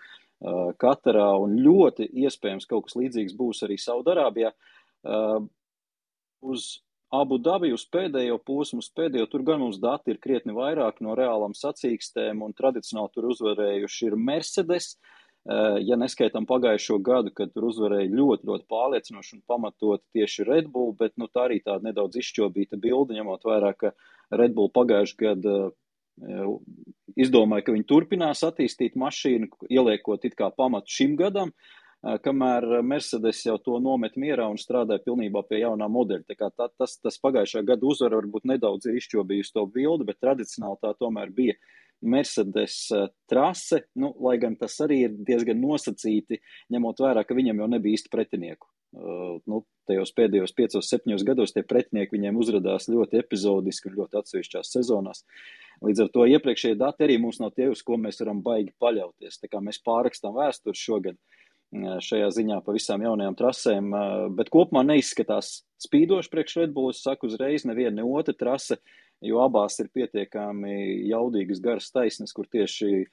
Katarā, un ļoti iespējams kaut kas līdzīgs būs arī Saudarābijā. Uz Abu Dabi uz pēdējo posmu, tur gan mums dati ir krietni vairāk no reālām sacīkstēm, un tradicionāli tur uzvarējuši ir Mercedes, ja neskaitam pagājušo gadu, kad tur uzvarēja ļoti, ļoti pārliecinoši un pamatot tieši Red Bull, bet tā arī tāda nedaudz izšķobīta bilde, ņemot vērā, ka Red Bull pagājuši gadu izdomāja, ka viņi turpinās attīstīt mašīnu, ieliekot it kā pamatu šim gadam, kamēr Mercedes jau to nomet mierā un strādāja pilnībā pie jaunā modeļa. Tā kā tas pagājušā gada uzvara varbūt nedaudz ir izšķobījusi to bildi, bet tradicionāli tā tomēr bija Mercedes trase, lai gan tas arī ir diezgan nosacīti, ņemot vērā, ka viņam jau nebija īsti pretinieku. Tajos pēdējos 5-7 gados tie pretinieki viņiem uzradās ļoti epizodiski un ļoti atsevišķās sezonās. Līdz ar to iepriekšējie dati arī mums nav tie, uz ko mēs varam baigi paļauties. Tā kā mēs pārrakstām vēsturi šogad šajā ziņā pa visām jaunajām trasēm, bet kopumā neizskatās spīdoši priekš Red Bull, es saku uzreiz, neviena ne otra trase, jo abās ir pietiekami jaudīgas garas taisnes, kur tieši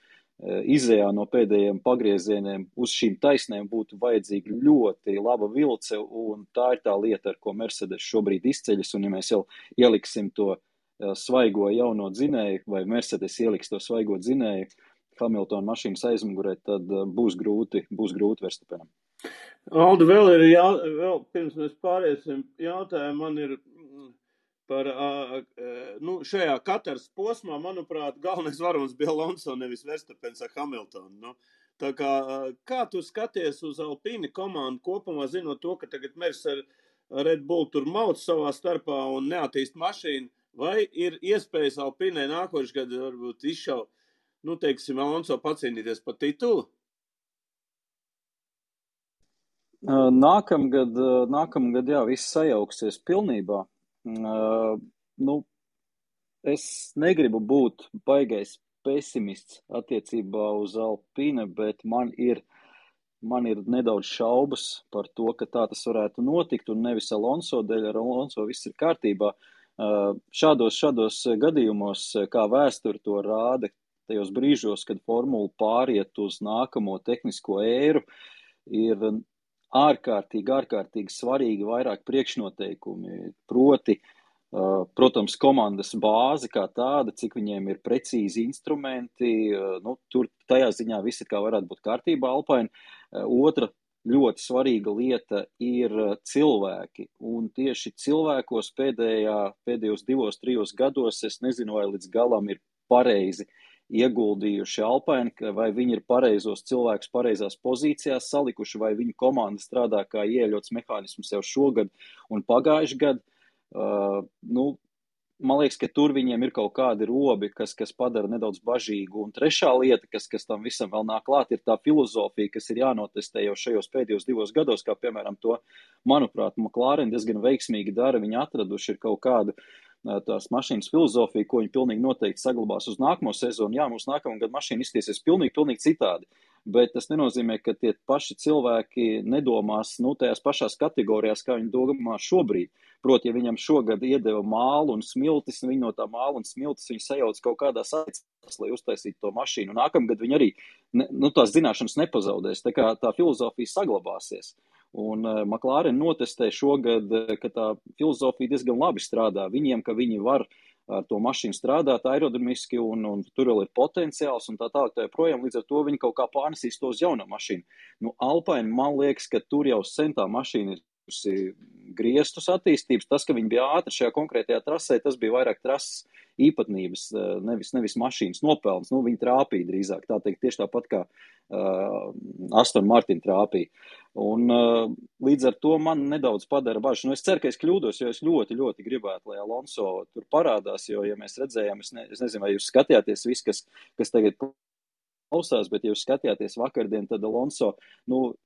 izējā no pēdējiem pagriezieniem uz šīm taisnēm būtu vajadzīga ļoti laba vilce, un tā ir tā lieta, ar ko Mercedes šobrīd izceļas, un ja mēs jau ieliksim to svaigo jauno dzinēju, vai Mercedes ieliks to svaigo dzinēju Hamiltona mašīnas aizmugurē, tad būs grūti Verstappenam. Aldi, vēl pirms mēs pāriesim jautājumu, man ir par šajā Kataras posmā, manuprāt, galvenais varonis bija Alonso, nevis Verstappens ar Hamiltonu. Tā kā tu skaties uz Alpine komandu kopumā, zinot to, ka tagad Mers ar Red Bull tur mauc savā starpā un neattīst mašīnu, vai ir iespējas Alpinē nākošais gadu varbūt izšaut, teiksim, Alonso pacīnīties par titulu? Nākamgad, jā, viss sajauksies pilnībā. Es negribu būt baigais pesimists attiecībā uz Alpine, bet man ir nedaudz šaubas par to, ka tā tas varētu notikt, un nevis Alonso dēļ, ar Alonso viss ir kārtībā. Šādos gadījumos, kā vēsture to rāda, tajos brīžos, kad formula pāriet uz nākamo tehnisko ēru, ir ārkārtīgi svarīgi vairāk priekšnoteikumi, proti, protams, komandas bāze kā tāda, cik viņiem ir precīzi instrumenti, tur tajā ziņā viss ir kā varētu būt kārtībā Alpine. Otra ļoti svarīga lieta ir cilvēki. Un tieši cilvēkos pēdējos 2-3 gados, es nezinu, vai līdz galam ir pareizi ieguldījuši Alpine, vai viņi ir pareizos cilvēkus pareizās pozīcijās salikuši, vai viņu komanda strādā kā ieļots mehānisms jau šogad un pagājuši gadu. Man liekas, ka tur viņiem ir kaut kādi robi, kas padara nedaudz bažīgu. Un trešā lieta, kas tam visam vēl nāk klāt, ir tā filozofija, kas ir jānotestē jau šajos pēdējos 2 gados, kā piemēram to, manuprāt, McLaren diezgan veiksmīgi dara. Viņi atraduši ir kaut kādu tās mašīnas filozofiju, ko viņi pilnīgi noteikti saglabās uz nākamo sezonu. Jā, mums nākamā gada mašīna iztiesies pilnīgi citādi. Bet tas nenozīmē, ka tie paši cilvēki nedomās tajās pašās kategorijās, kā viņi domā šobrīd. Proti, ja viņam šogad iedeva mālu un smiltis, viņi no tā māla un smiltis viņi sajauc kaut kādā saicās, lai uztaisītu to mašīnu. Nākamgad viņi arī tās zināšanas nepazaudēs, tā kā tā filozofija saglabāsies. Un McLaren notestē šogad, ka tā filozofija diezgan labi strādā. Viņiem, ka viņi var ar to mašīnu strādāt aerodinamiski un tur vēl ir potenciāls un tā tālāk tā joprojām. Līdz ar to viņi kaut kā pārnesīs to uz jaunu mašīnu. Alpine, man liekas, ka tur jau sen tā mašīna ir griestus attīstības. Tas, ka viņi bija ātri šajā konkrētajā trasē, tas bija vairāk trases īpatnības, nevis mašīnas nopelns. Viņi trāpīja drīzāk, tā teikt, tieši tāpat kā Aston Martin trāpīja. Un līdz ar to man nedaudz padara bažas. Es ceru, ka es kļūdos, jo es ļoti, ļoti gribētu, lai Alonso tur parādās, jo, ja mēs redzējām, es nezinu, vai jūs skatījāties viss, kas tagad klausās, bet ja jūs skatījāties vakardien, tad Alonso,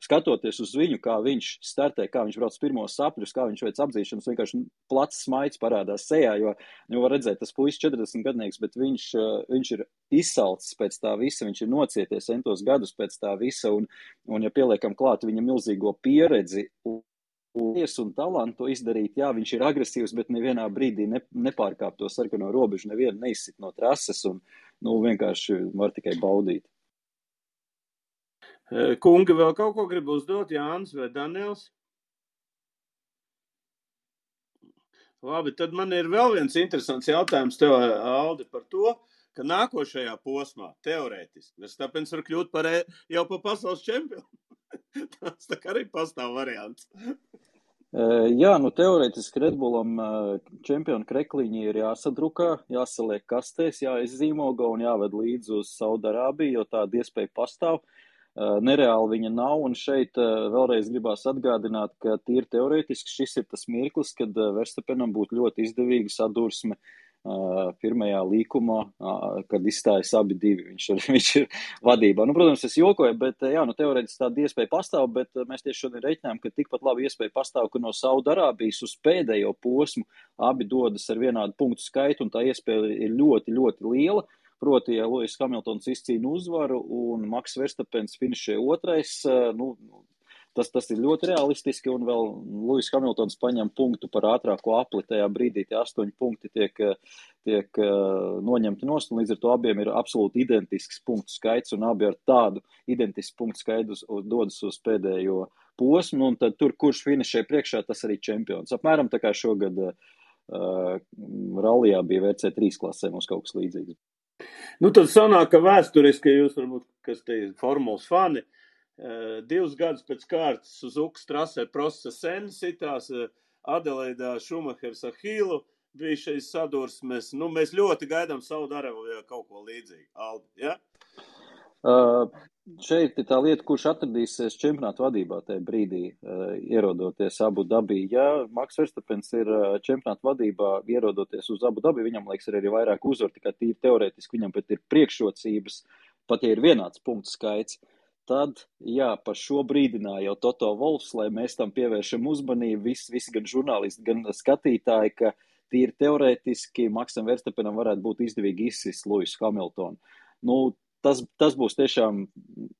skatoties uz viņu, kā viņš startē, kā viņš brauc pirmos sapļus, kā viņš veic apdzīšanas, vienkārši plats smaids parādās sejā, jo var redzēt, tas puisis 40 gadnieks, bet viņš ir izsalcis pēc tā visa, viņš ir nocieties entos gadus pēc tā visa, un ja pieliekam klāt viņa milzīgo pieredzi un talantu izdarīt, jā, viņš ir agresīvs, bet nevienā brīdī nepārkāp to sarkano robežu, nevienu neizsit no trases, un vienkārši var tikai baudīt. Kungi, vēl kaut ko grib uzdot, Jānis vai Daniels? Labi, tad man ir vēl viens interesants jautājums tev, Aldi, par to, ka nākošajā posmā, teorētiski, Verstappens var kļūt jau par pasaules čempionu. Tas tā kā arī pastāv variants. Jā, teorētiski Red Bullam čempionu krekliņi ir jāsadrukā, jāsaliek kastēs, jāizzīmogo un jāved līdz uz Saudarābiju, jo tāda iespēja pastāv. Nereāli viņa nav, un šeit vēlreiz gribās atgādināt, ka tīri teorētiski šis ir tas mirklis, kad Verstappenam būtu ļoti izdevīga sadursme pirmajā līkumā, kad izstājas abi divi. Viņš ir vadībā. Protams, es jokoju, bet teorētiski tāda iespēja pastāv, bet mēs tieši šodien reiķinām, ka tikpat labi iespēja pastāv, ka no Saudarābijas uz pēdējo posmu abi dodas ar vienādu punktu skaitu, un tā iespēja ir ļoti, ļoti liela. Proti, ja Lewis Hamiltons izcīna uzvaru un Max Verstappens finišē otrais, tas ir ļoti realistiski, un vēl Lewis Hamiltons paņem punktu par ātrāko apli, tajā brīdī tie 8 punkti tiek noņemti nost, un līdz ar to abiem ir absolūti identisks punktu skaits, un abi ar tādu identisku punktu skaitu dodas uz pēdējo posmu, un tad tur, kurš finišē priekšā, tas arī čempions. Apmēram tā kā šogad rallijā bija WC3 klasē, mums kaut kas līdzīgs. Tad sanāk, ka vēsturiski, jūs varbūt, kas te ir formulas fani, 2 gadus pēc kārtas Suzukas trasē Prosta Senna sitās, Adelaidā Šumahers ar Hīlu bija šeit sadursmes. Mēs ļoti gaidām Saudarābijā kaut ko līdzīgu. Aldi, ja? Šeit ir tā lieta, kurš atradīsies čempionātu vadībā tajā brīdī, ierodoties Abu Dabī. Ja Max Verstappens ir čempionātu vadībā, ierodoties uz Abu Dabī, viņam liekas arī vairāk uzvaru, tikai tīri teorētiski viņam pat ir priekšrocības, pat ja ir vienāds punktu skaits. Tad, par šo brīdināja jau Toto Wolffs, lai mēs tam pievēršam uzmanību, visi gan žurnālisti, gan skatītāji, ka tīri teorētiski Maxam Verstappenam varētu būt izdevīgi izsist Lewisu Hamiltonu. Tas būs tiešām,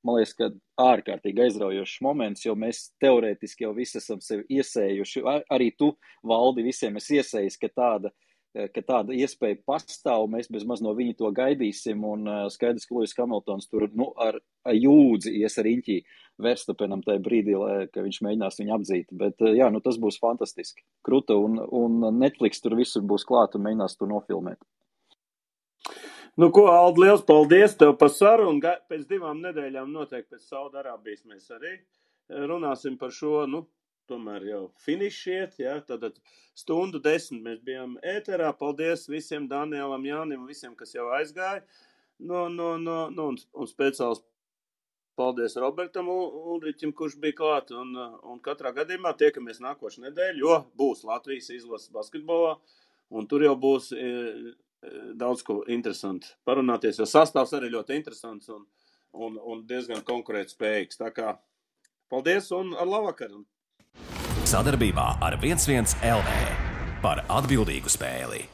man liekas, ka ārkārtīgi aizraujošs moments, jo mēs teorētiski jau visi esam sevi iesējuši. Arī tu, Valdi, visiem esi iesējis, ka tāda iespēja pastāv, mēs bezmaz no viņa to gaidīsim, un skaidrs, ka Lewis Hamiltons tur ar jūdzi ies ar riņķī Verstappenam tajā brīdī, ka viņš mēģinās viņu apdzīt. Bet tas būs fantastiski. Kruta, un Netflix tur visur būs klāt un mēģinās to nofilmēt. Ko, Aldi, liels paldies tev par sarunu. Pēc 2 nedēļām noteikti pēc Saudarābijas mēs arī runāsim par šo, tomēr jau finišiet, jā, tātad 1:10 mēs bijām ēterā. Paldies visiem Danielam, Jānim, visiem, kas jau aizgāja. Un speciāls paldies Robertam Ulriķim, kurš bija klāt. Un katrā gadījumā tiekamies nākošu nedēļu, jo būs Latvijas izlases basketbolā. Un tur jau būs daudz ko interesanti parunāties, jo sastāvs arī ļoti interesants un diezgan konkurētspējīgs. Tā kā paldies un ar labvakaru! Sadarbībā ar 11 LV par atbildīgu spēli.